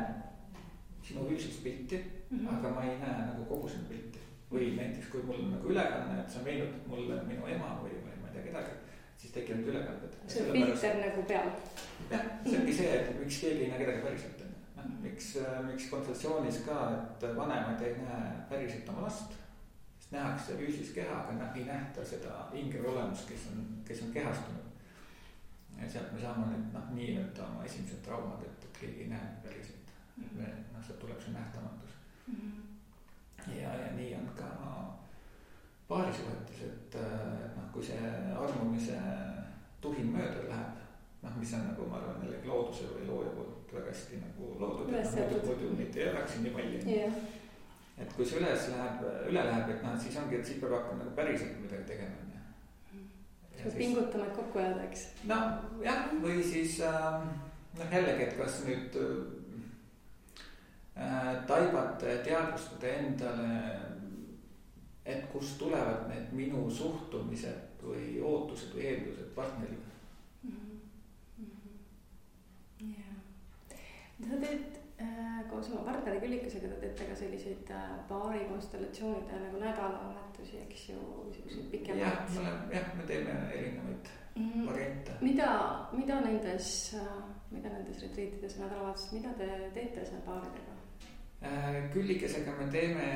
sinu füüsilist pilti, aga ma ei näe nagu kogu sinu pilti. Või näiteks, kui mul on nagu ülekanne, et sa meenutad mulle minu ema või ma ei tea kedagi, siis tekivad ülekanded. See on filter nagu peal. Jah, see ongi see, et miks keegi ei näe kedagi päriselt. Miks konsultatsioonis ka, et vanemad ei näe päriselt oma last, sest nähakse füüsilist keha, aga ei nähta seda ingeri olemust, kes on kehastunud. Ja sealt me saame nüüd nii-öelda oma esimesed traumad, et keegi ei näe päriselt. Sealt tuleb see nähtamatus. Ja nii on ka paarisuhetes, et kui see armumise tuhin mööda läheb, mis on nagu ma arvan jällegi looduse või looja poolt väga hästi nagu loodud, muidu mitte ei oleks nii palju. Et kui see üle läheb, et siis ongi, et siis peab hakkama nagu päriselt midagi tegema. Siis pingutama, et kokku jääda, eks? Jah, või siis jällegi, et kas nüüd taibata ja teadvustada endale, et kust tulevad need minu suhtumised või ootused või eeldused partneriga. Sa teed koos oma partneri Küllikesega, te teete ka selliseid paari konstellatsioonide nagu nädalavahetusi, eks ju, pikemalt. Jah, me teeme erinevaid variante. Mida nendes mida nendes retriitides või nädalavahetused, mida te teete seal paaridega? Küllikesega me teeme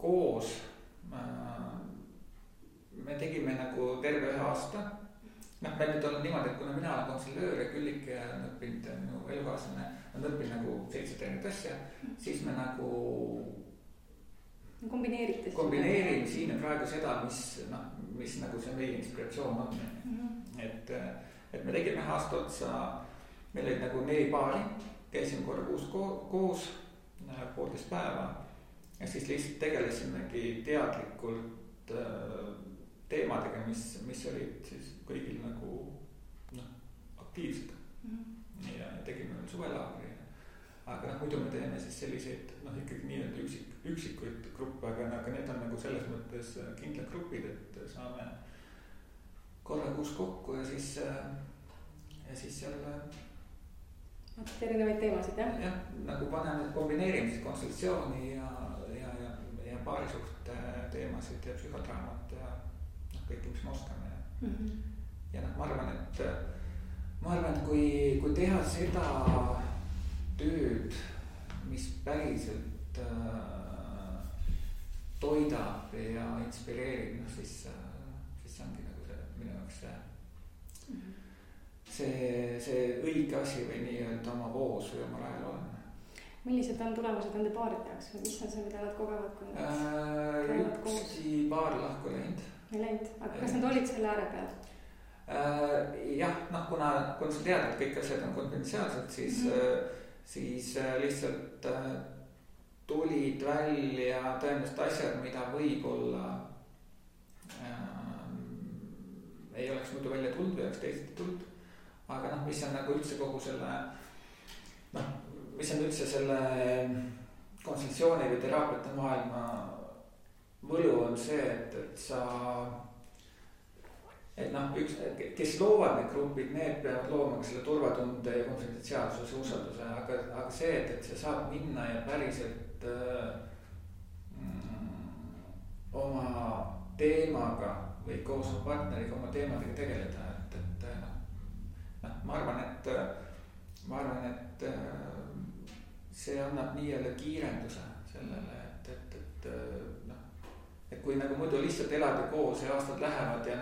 koos, me tegime nagu terve 1 aasta. Meil nüüd on niimoodi, et kuna mina olen konseljöör ja Küllike on õppinud, minu elukaaslane on õppinud nagu 7 erinevat asja, siis me nagu kombineerime siin praegu seda, mis nagu see meie inspiratsioon on. Et me tegime 1 aasta otsa, meil olid nagu 4 paari, käisime korra koos 1,5 päeva ja siis lihtsalt tegelesimegi teadlikult teemadega, mis olid siis kõigil nagu aktiivsed. Ja tegime veel suvelaagri. Aga muidu me teeme siis selliseid ikkagi nii-öelda üksikuid gruppe, aga need on nagu selles mõttes kindlad grupid, et saame korra kuus kokku ja siis seal erinevaid teemasid, jah? Jah, nagu paneme kombineerimise konsultatsiooni ja paarisuhte teemasid ja psühhodraamat ja kõike, mis me oskame. Ja ma arvan, et kui teha seda tööd, mis päriselt toidab ja inspireerib, siis ongi nagu see minu jaoks see õige asi või nii-öelda oma voos või oma rajal on. Millised on tulemused nende paaride jaoks või mis on see, mida nad kogevad, kui nad käivad koos? Ükski paar lahku läinud. Ei läinud, aga kas nad olid selle ääre peal? Jah, kuna sa tead, et kõik asjad on konfidentsiaalsed, siis lihtsalt tulid välja tõenäoliselt asjad, mida võib-olla ei oleks muidu välja tulnud või oleks teisiti tulnud. Aga mis on nagu üldse kogu selle, mis on üldse selle konsultatsiooni või teraapiate maailma võlu on see, kes loovad need grupid, need peavad looma ka selle turvatunde ja konfidentsiaalsuse, usalduse, aga see, et see saab minna ja päriselt oma teemaga või koos oma partneriga oma teemadega tegeleda, ma arvan, et see annab nii-öelda kiirenduse sellele, et kui nagu muidu lihtsalt elada koos ja aastad lähevad ja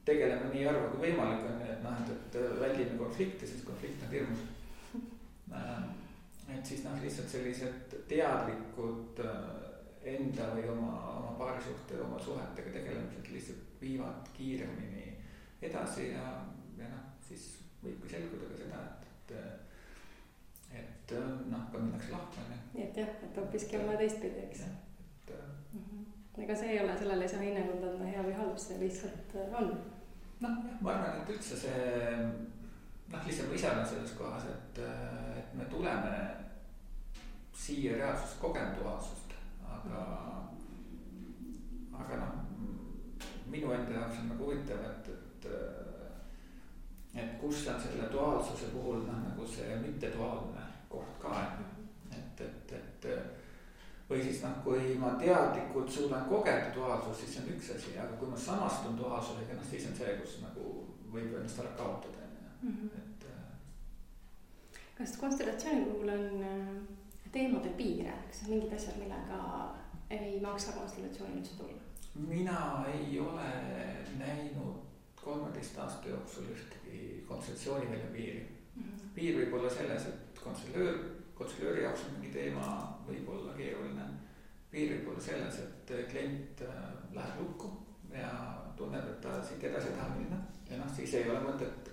tegeleme nii harva kui võimalik on, et väldime konflikti, sest konflikt on hirmus. Et siis lihtsalt sellised teadlikud enda või oma paarisuhte, oma suhetega tegelemised lihtsalt viivad kiiremini edasi ja siis võibki selguda ka seda, et ka minnakse lahku. Nii et jah, et hoopiski olla teistpidi, eks. Ega see ei ole, sellele ei saa hinnangut anda hea või halb, see lihtsalt on. Ma arvan, et üldse see, lihtsalt ma ise olen selles kohas, et me tuleme siia reaalsust kogema duaalsust, aga minu enda jaoks on nagu huvitav, et kus on selle duaalsuse puhul nagu see mitteduaalne koht ka, et või siis kui ma teadlikult suudan kogeda duaalsust, siis see on üks asi, aga kui ma samastun duaalsusega, siis on see, kus nagu võib ennast ära kaotada. Kas konstellatsiooni puhul on teemadel piire, kas on mingid asjad, millega ei maksa konstellatsiooni üldse tulla? Mina ei ole näinud 13 aasta jooksul ühtegi konstellatsiooni välja piiri. Piir võib olla selles, et konstellööri jaoks on mingi teema võib olla keeruline. Piir võib olla selles, et klient läheb lukku ja tunneb, et ta siit edasi ei taha minna. Ja siis ei ole mõtet,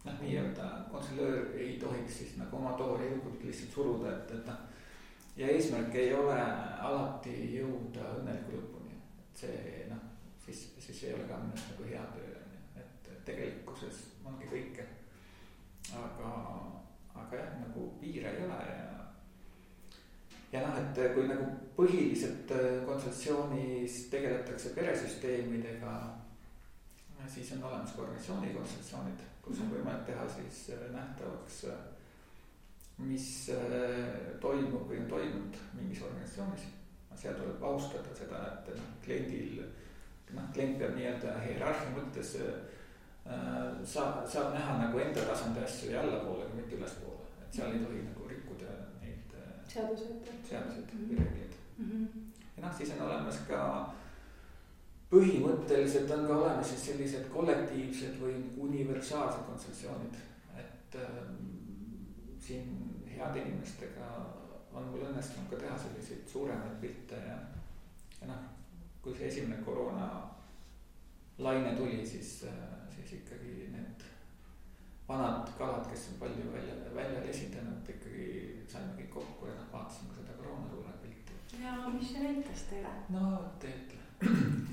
nii-öelda konstellöör ei tohiks siis nagu oma toori jõukult lihtsalt suruda, ja eesmärk ei ole alati jõuda õnneliku lõpuni. See, siis ei ole ka minust nagu hea töö, et tegelikkuses ongi kõike. Aga jah, nagu piire ei ole ja et kui nagu põhiliselt konsultatsioonis tegeletakse peresüsteemidega, siis on olemas ka organisatsioonikonsultatsioonid, kus on võimalik teha siis nähtavaks, mis toimub või on toimunud mingis organisatsioonis. Seal tuleb austada seda, et klient peab nii-öelda hierarhia mõttes saab näha nagu enda tasandi asju ja allapoole, kui mitte ülespoole, et seal ei tohi nagu rikkuda neid seaduseid või reegleid. Ja noh, siis on olemas ka põhimõtteliselt on ka olemas siis sellised kollektiivsed või universaalsed kontsessioonid, et siin heade inimestega on mul õnnestunud ka teha selliseid suuremaid pilte ja noh, kui see esimene koroona laine tuli, siis ikkagi need vanad kalad, kes on palju välja esindanud, ikkagi saime kõik kokku ja noh, vaatasime seda koroona suure pilti. Ja mis see näitas teile? No teetle.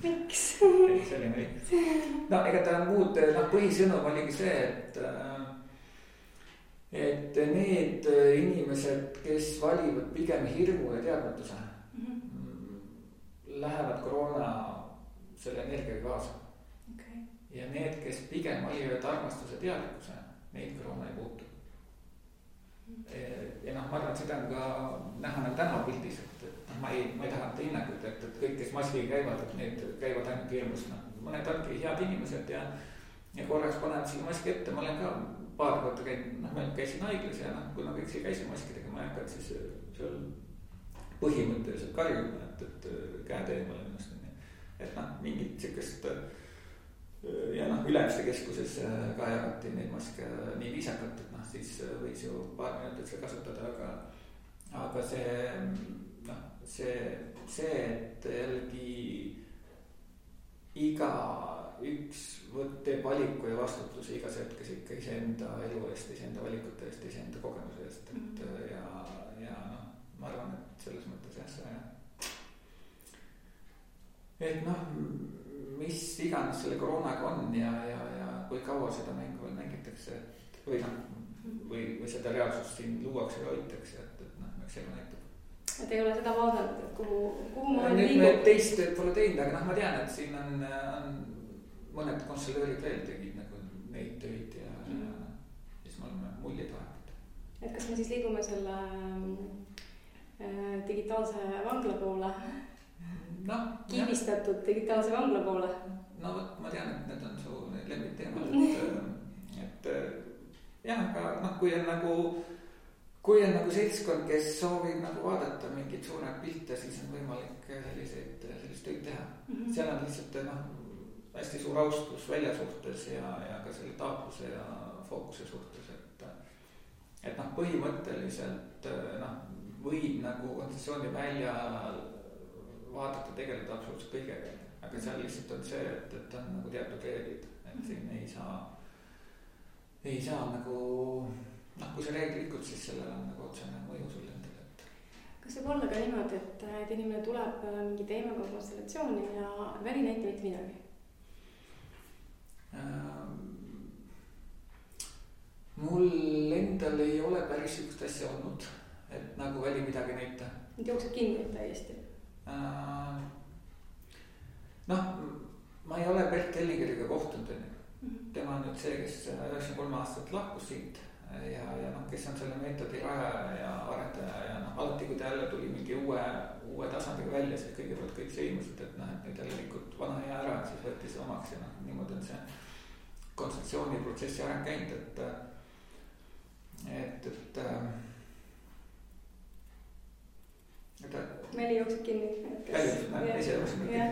Miks? See oli nii. No ega ta muud, põhisõnum oligi see, et need inimesed, kes valivad pigem hirmu ja teadmatuse, lähevad koroona selle energiaga kaasa. Okay. Ja need, kes pigem valivad armastuse teadlikkuse, neid koroona ei puutu. Ja noh, ma arvan, et seda on ka näha nagu tänavapildis, et ma ei taha anda hinnangut, et kõik, kes maskiga käivad, et need käivad ainult hirmus. Mõned ongi head inimesed ja korraks panevad selle maski ette. Ma olen ka paar korda käinud, ma käisin haiglas ja kui ma kõik siia käisin maskidega, ma ei hakanud siis seal põhimõtteliselt karjuma, et käed eemale ennast. Et mingit siukest ja Ülemiste keskuses ka jagati neid maske nii viisakalt, et siis võis ju paar minutit seda kasutada, aga see, et jällegi iga üks teeb valiku ja vastutuse igas hetkes ikka iseenda elu eest, iseenda valikute eest, iseenda kogemuse eest, ja ma arvan, et selles mõttes jah, et mis iganes selle koroonaga on ja kui kaua seda mängu veel mängitakse, või seda reaalsust siin luuakse ja hoitakse, et eks elu näitab. Et ei ole seda vaadanud, et kuhu ma nüüd liigub? Me teist pole teinud, aga ma tean, et siin on mõned konsulöörid veel tegid nagu neid töid ja siis me oleme muljeid vahetanud. Et kas me siis liigume selle digitaalse vangla poole? Kiibistatud digitaalse vangla poole? No vot, ma tean, et need on su lemmikteemad, et jah, aga kui on nagu seltskond, kes soovib nagu vaadata mingeid suuremat pilte, siis on võimalik sellist tööd teha. Seal on lihtsalt hästi suur austus välja suhtes ja ka selle taatluse ja fookuse suhtes, et põhimõtteliselt võib nagu kontsessiooni välja vaadata, tegeleda absoluutselt kõigega, aga seal lihtsalt on see, et on nagu teatud reeglid, et siin ei saa nagu kui see reegel likud, siis sellel on nagu otsene mõju sulle endale. Kas võib olla ka niimoodi, et inimene tuleb mingi teemaga konstellatsiooni ja väli näita mitte midagi? Mul endal ei ole päris sükust asja olnud, et nagu väli midagi näita. Et jookseb kinni täiesti? Ma ei ole Bert Hellingeriga kohtunud. Tema on nüüd see, kes 93 aastat lahkus siit ja kes on selle meetodi rajaja ja arendaja ja alati, kui ta jälle tuli mingi uue tasandiga välja, siis kõigepealt kõik sõimusid, et nüüd jälle likud vana hea ära, siis võeti see omaks ja niimoodi on see kontseptsiooniprotsessi areng käinud, Väli jookseb kinni. Ise jookseb kinni.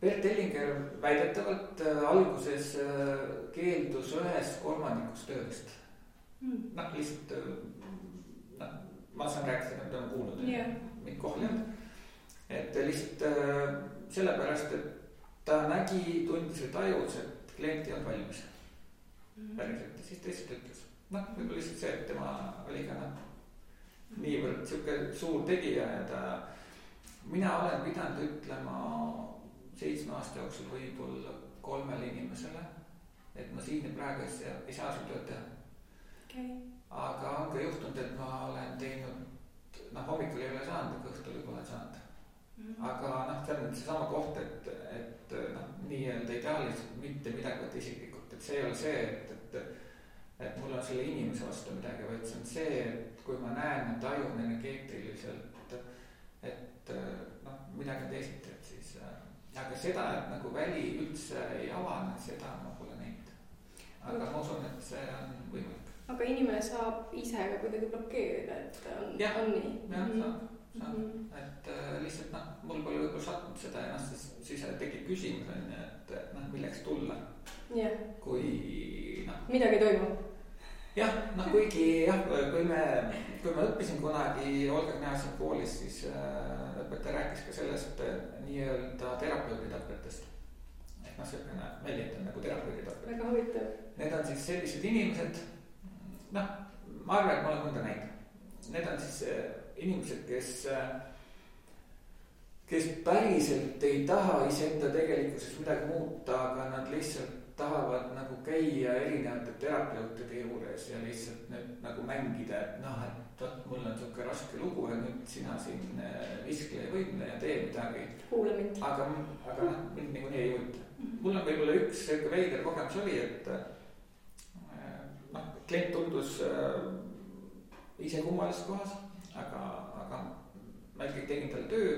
Bert Hellinger väidetavalt alguses keeldus 1/3 töödest. Lihtsalt ma saan rääkida, mida ma kuulnud, mind kohal ei olnud. Et lihtsalt sellepärast, et ta tundis või tajus, et klient ei olnud valmis. Päriselt, siis ta lihtsalt ütles. Võib-olla lihtsalt see, et tema oli ka niivõrd siuke suur tegija ja mina olen pidanud ütlema 7 aasta jooksul võib-olla 3 inimesele, et ma siin ja praegu ei saa sul tööd teha. Okay. Aga on ka juhtunud, et ma olen teinud, hommikul ei ole saanud, aga õhtul juba olen saanud. Aga see on seesama koht, et nii-öelda ideaalist mitte midagi võtta isiklikult, et see ei ole see, et mul on selle inimese vastu midagi, vaid see on see, et kui ma näen, et tajun energeetiliselt, et midagi on teisiti, et siis aga seda, et nagu väli üldse ei avane, seda ma pole näinud. Aga ma usun, et see on võimalik. Aga inimene saab ise ka kuidagi blokeerida, et on nii? Jah, saab. Et lihtsalt mul pole võib-olla sattunud seda ennast, siis tekib küsimus, et milleks tulla. Kui midagi toimub. Jah, kuigi kui me õppisin kunagi Olga Kneasin koolis, siis õpetaja rääkis ka sellest nii-öelda terapeuditapetest. Et selline väljend on nagu terapeuditapet. Väga huvitav. Need on siis sellised inimesed, ma arvan, et ma olen mõnda näinud. Need on siis inimesed, kes päriselt ei taha iseenda tegelikkuses midagi muuta, aga nad lihtsalt tahavad nagu käia erinevate terapeutide juures ja lihtsalt nüüd nagu mängida, et mul on siuke raske lugu ja nüüd sina siin viskle ja võimle ja tee midagi. Kuule mind. Aga mind niikuinii ei huvita. Mul on võib-olla üks veider kogemus oli, et klient tundus ise kummalises kohas, aga ma ikkagi tegin talle töö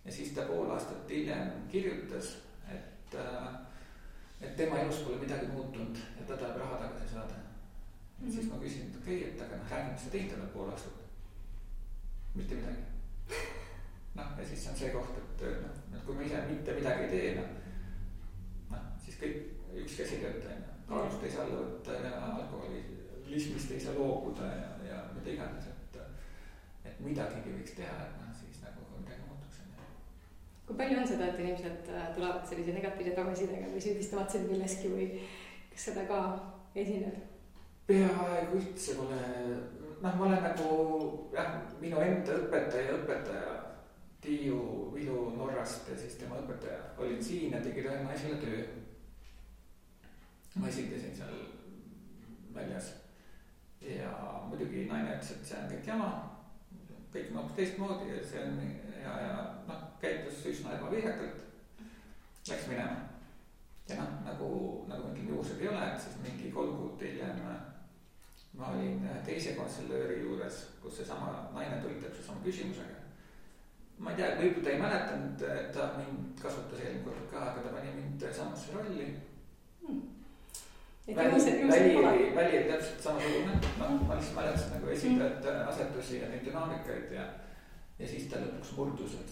ja siis ta pool aastat hiljem kirjutas, et tema elus pole midagi muutunud ja ta tahab raha tagasi saada. Siis ma küsin, et okei, et aga räägime, mis sa teinud talle pool aastat. Mitte midagi. Ja siis on see koht, et kui ma ise mitte midagi ei tee, siis kõik üks käsi tööta. Kaalust ei saa võtta ja alkoholismist ei saa loobuda ja mida iganes, et midagigi võiks teha, et siis nagu midagi muutuks. Kui palju on seda, et inimesed tulevad sellise negatiivse tagasidega või süüdistavad sind milleski või kas seda ka esineb? Peaaegu üldse pole, ma olen nagu, minu enda õpetaja Tiiu Vilu Norrast ja siis tema õpetaja olid siin ja tegid ühe naisele töö. Ma esindasin seal väljas ja muidugi naine ütles, et see on kõik jama, kõik on hoopis teistmoodi ja see on ja käitus üsna ebaviisakalt, läks minema. Ja nagu ma ütlen, juhused ei ole, et siis mingi 3 kuud hiljem ma olin teise konselööri juures, kus seesama naine tuli täpselt sama küsimusega. Ma ei tea, võib-olla ta ei mäletanud, et ta mind kasutas eelmine kord ka, aga ta pani mind samasse rolli. Väli oli täpselt samasugune. Ma lihtsalt mäletasin nagu esindajate asetusi ja neid dünaamikaid ja siis ta lõpuks murdus, et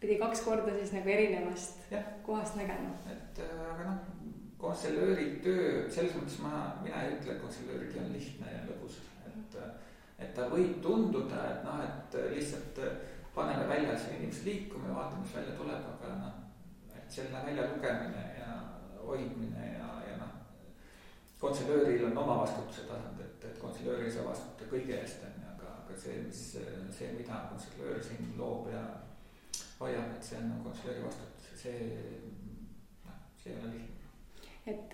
pidi 2 korda siis nagu erinevast kohast nägema. Aga konselööri töö, selles mõttes mina ei ütle, et konselööri töö on lihtne ja lõbus. Et ta võib tunduda, et lihtsalt paneme väljas inimesed liikuma ja vaatame, mis välja tuleb, aga et selle välja lugemine ja hoidmine ja konselööril on oma vastutuse tasand, et konselöör ei saa vastuta kõige eest, aga see, mida konselöör siin loob ja hoiab, et see on konselööri vastutus ja see ei ole lihtne. Et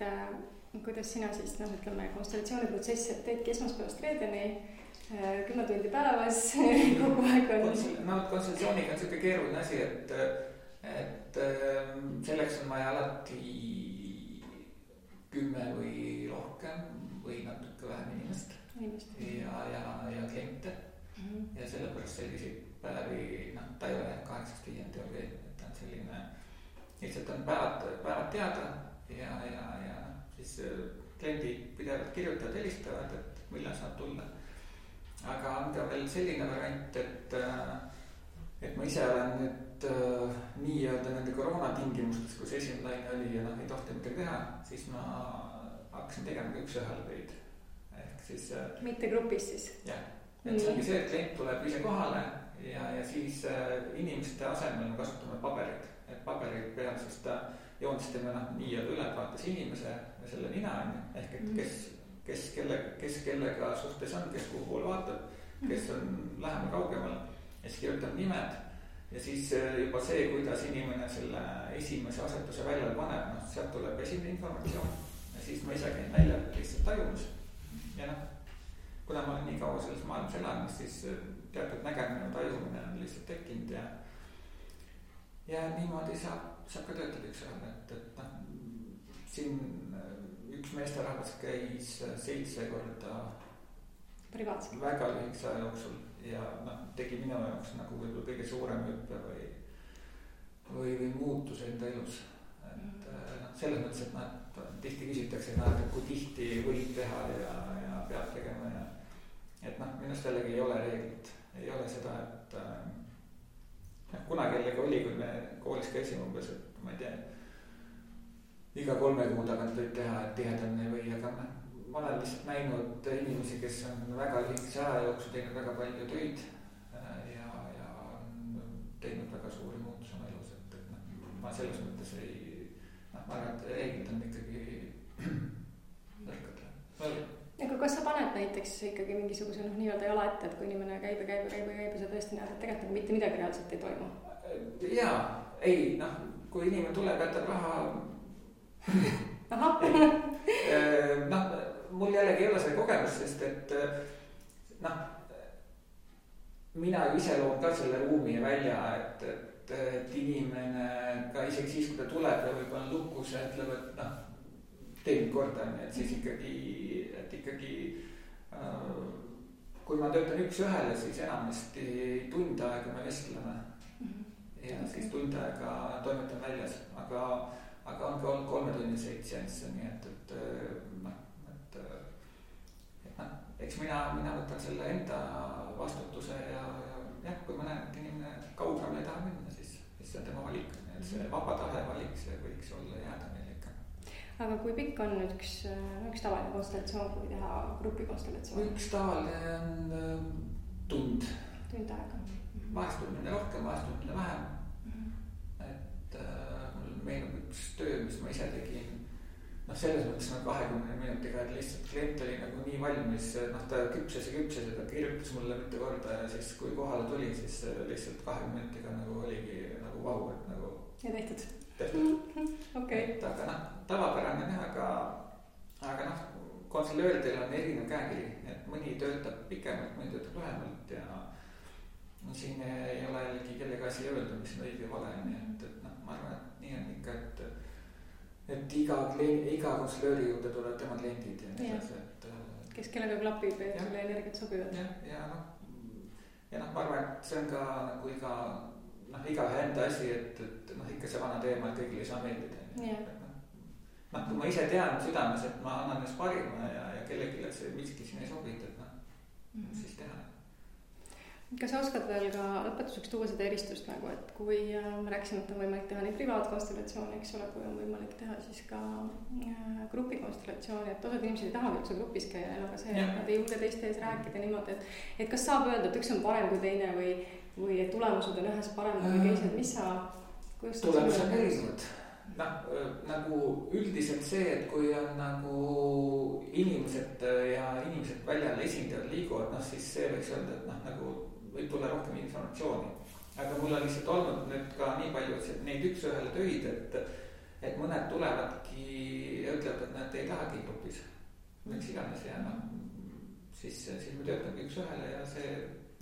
kuidas sina siis, konstellatsiooniprotsessi teedki esmaspäevast reedeni 10 tundi päevas kogu aeg on. Konstellatsiooniga on selline keeruline asi, et selleks on vaja alati 10 või rohkem või natuke vähem inimest ja kliente. Ja sellepärast selliseid päevi, ta ei ole 8-5 teooria, et ta on selline, lihtsalt on päevad teada ja siis kliendid pidevalt kirjutavad, helistavad, et millal saab tulla. Aga on ka veel selline variant, et ma ise olen nüüd nii-öelda nende koroona tingimustes, kus esimene laine oli ja ei tohti midagi teha, siis ma hakkasin tegema ka üks-ühele töid. Ehk siis mitte grupis siis? Jah, et see ongi see, et klient tuleb ise kohale ja siis inimeste asemel me kasutame paberit. Et paberit peal siis ta joonistame nii-öelda ülevaates inimese ja selle nina on, ehk et kes kellega suhtes on, kes kuhu poole vaatab, kes on lähemal kaugemal ja siis kirjutab nimed ja siis juba see, kuidas inimene selle esimese asetuse välja paneb, sealt tuleb esimene informatsioon ja siis ma ise käin välja lihtsalt tajumus ja kuna ma olen nii kaua selles maailmas elanud, siis teatud nägemine ja tajumine on lihtsalt tekkinud ja niimoodi saab ka töötada üks-ühele, et siin üks meesterahvas käis 7 korda privaatselt väga lühikese aja jooksul ja noh, tegi minu jaoks nagu võib-olla kõige suurem hüppe või muutus enda elus. Et noh, selles mõttes, et noh, tihti küsitakse, et kui tihti võib teha ja peab tegema ja et noh, minust jällegi ei ole reeglit, ei ole seda, et kunagi jällegi oli, kui me koolis käisime umbes, et ma ei tea, iga 3 kuu tagant võib teha, et tihedamini või, aga ma olen lihtsalt näinud inimesi, kes on väga lühikese aja jooksul teinud väga palju töid ja teinud väga suuri muutusi oma elus, et noh, ma selles mõttes ma arvan, et reeglid on ikkagi nõrgad. Aga kas sa paned näiteks ikkagi mingisuguse nii-öelda jala ette, et kui inimene käib ja sa tõesti näed, et tegelikult nagu mitte midagi reaalselt ei toimu? Jaa, ei, noh, kui inimene tuleb, jätab raha. Noh, mul jällegi ei ole see kogemus, sest et noh, mina ju ise loon ka selle ruumi välja, et inimene ka isegi siis, kui ta tuleb ja võib-olla lukus ja ütleb, et noh, teeb korda, et siis ikkagi kui ma töötan üks ühele, siis enamasti tund aega me vestleme ja siis tund aega toimetan väljas, aga on ka olnud 3-tunniseid seansse, nii et eks mina võtan selle enda vastutuse ja jah, kui ma näen, et inimene kaugemale ei taha minna, siis see on tema valik, et see vaba tahe valik, see võiks olla jääda meil ikka. Aga kui pikk on üks tavaline konstellatsioon, kui teha grupikonstellatsioon? Üks tavaline on tund aega. Vahest tundmine rohkem, vahest tundmine vähem. Et mul meenub üks töö, mis ma ise tegin. Noh, selles mõttes 20 minutiga, et lihtsalt klient oli nagu nii valmis, noh, ta küpses ja ta kirjutas mulle mitu korda ja siis kui kohale tuli, siis lihtsalt 20 minutiga nagu oligi nagu vau, et nagu. Ja tehtud. Okay. Et aga noh, tavapärane jah, aga noh, konsulööridel on erinev käekiri, et mõni töötab pikemalt, mõni töötab lühemalt ja siin ei ole jällegi kellega asi öelda, mis on õige vale, nii et noh, ma arvan, et nii on ikka, et iga konsulööri juurde tulevad tema kliendid ja nii edasi, et kes kellega klapib ja sulle energiat sobivad. Ja noh, ma arvan, et see on ka nagu igaühe enda asi, et noh, ikka see vana teema, et kõigile ei saa meeldida. Noh, kui ma ise tean südames, et ma annan just parima ja kellelegi see miski siin ei sobita, et noh, siis teha. Kas sa oskad veel ka lõpetuseks tuua seda eristust nagu, et kui me rääksime, et on võimalik teha nii privaatkonstellatsiooni, eks ole, kui on võimalik teha siis ka grupikonstellatsiooni, et osad inimesed ei tahagi üldse grupis käia, aga see, et nad ei julge teiste ees rääkida niimoodi, et kas saab öelda, et üks on parem kui teine või et tulemused on ühes paremad või teised, mis sa tulemused on erinevad. Nagu üldiselt see, et kui on nagu inimesed väljal esindajad liiguvad, noh siis see võiks öelda, et noh nagu võib tulla rohkem informatsiooni. Aga mul on lihtsalt olnud nüüd ka nii palju, et neid üks ühele töid, et mõned tulevadki ja ütlevad, et nad ei tahagi grupis. Miks iganes ja noh, siis me töötamegi üks ühele ja see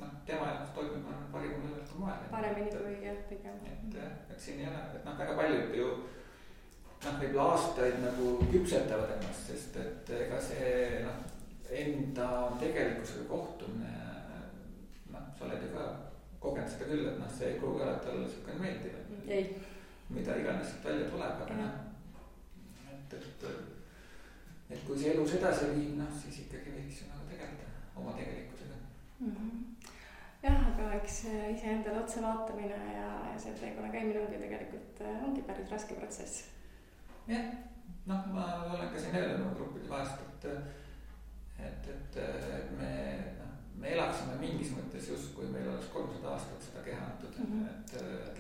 noh, tema jaoks toimub parimal võimalikul moel. Paremini kui jah, pigem. Et siin ei ole, et noh, väga paljud ju noh, võib-olla aastaid nagu küpsetavad ennast, sest et ega see noh, enda tegelikkusega kohtumine, noh, sa oled ju ka kogenud seda küll, et noh, see ei pruugi alati olla niisugune meeldiv, mida iganes välja tuleb, aga noh, et kui see elus edasi viib, noh, siis ikkagi võiks ju nagu tegeleda oma tegelikkusega. Jah, aga eks iseendale otse vaatamine ja see teekonna käimine ongi päris raske protsess. Jah, noh, ma olen ka siin öelnud gruppide vahest, et me elaksime mingis mõttes just, kui meil oleks 300 aastat seda keha antud, et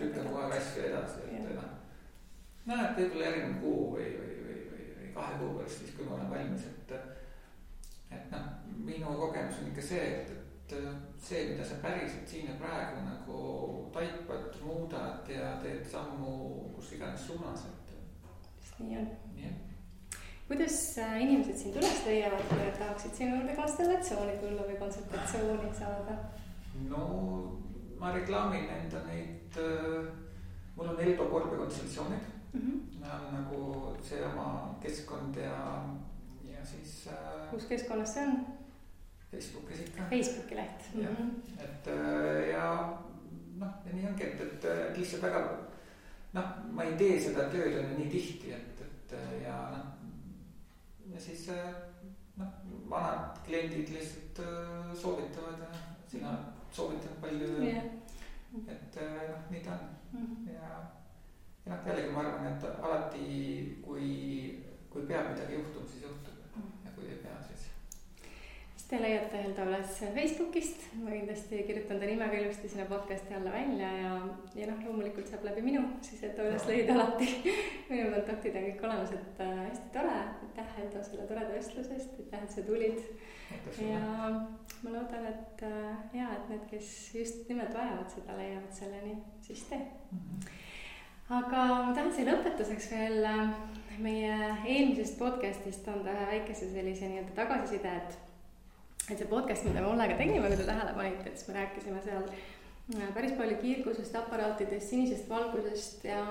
lükkame kohe asju edasi, et et võib-olla järgmine kuu või 2 kuu pärast siis, kui ma olen valmis, et noh, minu kogemus on ikka see, et see, mida sa päriselt siin ja praegu nagu taipad, muudad ja teed sammu kus iganes suunas, nii on. Kuidas inimesed sind üles leiavad, kui tahaksid sinu juurde konstellatsiooni tulla või konsultatsiooni saada? No ma reklaamin enda neid, mul on Elba korbekonsultatsioonid, on nagu see oma keskkond ja siis. Kus keskkonnas see on? Facebookis ikka. Facebooki leht. Jah, et ja noh, ja nii ongi, et lihtsalt väga noh, ma ei tee seda tööd on nii tihti, et ja noh, ja siis noh, vanad kliendid lihtsalt soovitavad ja sina soovitad palju, et noh, nii ta on. Ja noh, jällegi ma arvan, et alati kui peab midagi juhtuma, siis juhtub ja kui ei pea, siis. Te leiate Helda üles Facebookist, ma kindlasti kirjutan ta nimega ilusti sinna podcasti alla välja ja noh, loomulikult saab läbi minu, siis et üles leida alati. Minu kontaktid on kõik olemas, et hästi tore, aitäh Helda selle toreda vestlusest, aitäh, et sa tulid. Ja ma loodan, et et need, kes just nimelt vajavad seda, leiavad selleni, siis tee. Aga ma tahan see lõpetuseks veel meie eelmisest podcastist anda ühe väikese sellise nii-öelda tagasiside, et see podcast, mida me Ollega tegime, kui te tähele panite, et siis me rääkisime seal päris palju kiirgusest, aparaatidest, sinisest valgusest ja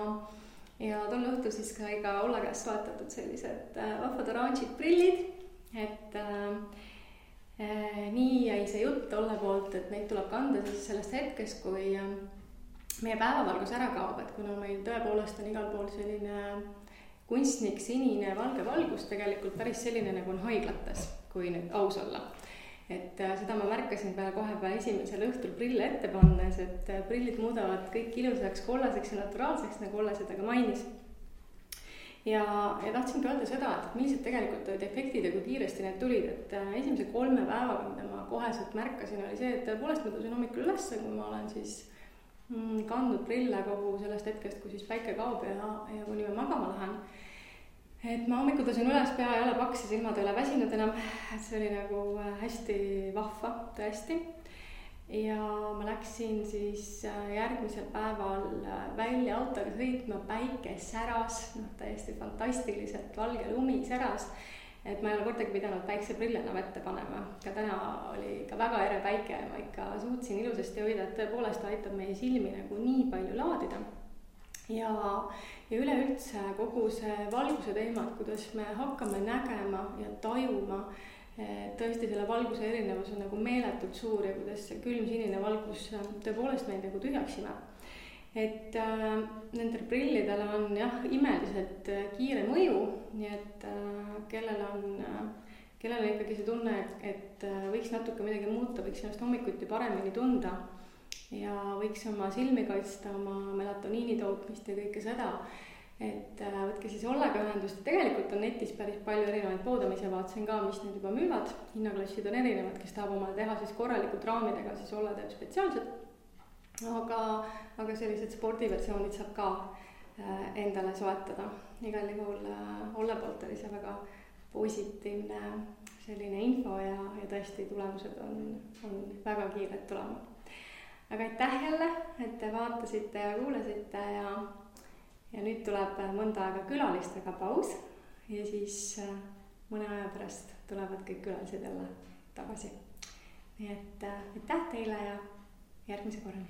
tol õhtul siis ka iga Olle käest soetatud sellised vahvad oranžid prillid, et nii jäi see jutt Olle poolt, et neid tuleb kanda siis sellest hetkest, kui meie päevavalgus ära kaob, et kuna meil tõepoolest on igal pool selline kunstnik sinine valge valgus, tegelikult päris selline nagu on haiglates, kui nüüd aus olla. Et seda ma märkasin kohe esimesel õhtul prille ette pannes, et prillid muudavad kõik ilusaks, kollaseks ja naturaalseks, nagu Olle seda ka mainis. Ja tahtsingi öelda seda, et millised tegelikult olid efektid ja kui kiiresti need tulid, et esimese 3 päevaga, mida ma koheselt märkasin, oli see, et tõepoolest ma tõusin hommikul üles, kui ma olen siis kandnud prille kogu sellest hetkest, kui siis päike kaob ja kuni ma magama lähen. Et ma hommikul tõusin üles, pea ei ole paks ja silmad ei ole väsinud enam, et see oli nagu hästi vahva, tõesti. Ja ma läksin siis järgmisel päeval välja autoga sõitma, päike säras, täiesti fantastiliselt valge lumi säras, et ma ei ole kordagi pidanud päikseprille enam ette panema. Ka täna oli ka väga ere päike ja ma ikka suutsin ilusasti hoida, et tõepoolest aitab meie silmi nagu nii palju laadida. Ja üleüldse kogu see valguse teema, et kuidas me hakkame nägema ja tajuma, tõesti selle valguse erinevus on nagu meeletult suur ja kuidas see külm sinine valgus tõepoolest meid nagu tühjaks imeb. Et nendel prillidel on jah, imeliselt kiire mõju, nii et kellel on ikkagi see tunne, et võiks natuke midagi muuta, võiks ennast hommikuti paremini tunda ja võiks oma silmi kaitsta, oma melatoniini tootmist ja kõike seda, et võtke siis Ollega ühendust. Tegelikult on netis päris palju erinevaid poode, ma ise vaatasin ka, mis need juba müüvad. Hinnaklassid on erinevad, kes tahab omale teha siis korralikult raamidega, siis Olle teeb spetsiaalselt. Aga sellised spordiversioonid saab ka endale soetada. Igal juhul Olle poolt oli see väga positiivne selline info ja tõesti tulemused on väga kiired tulema. Aga aitäh jälle, et te vaatasite ja kuulasite ja nüüd tuleb mõnda aega külalistega paus ja siis mõne aja pärast tulevad kõik külalised jälle tagasi. Nii et aitäh teile ja järgmise korrani.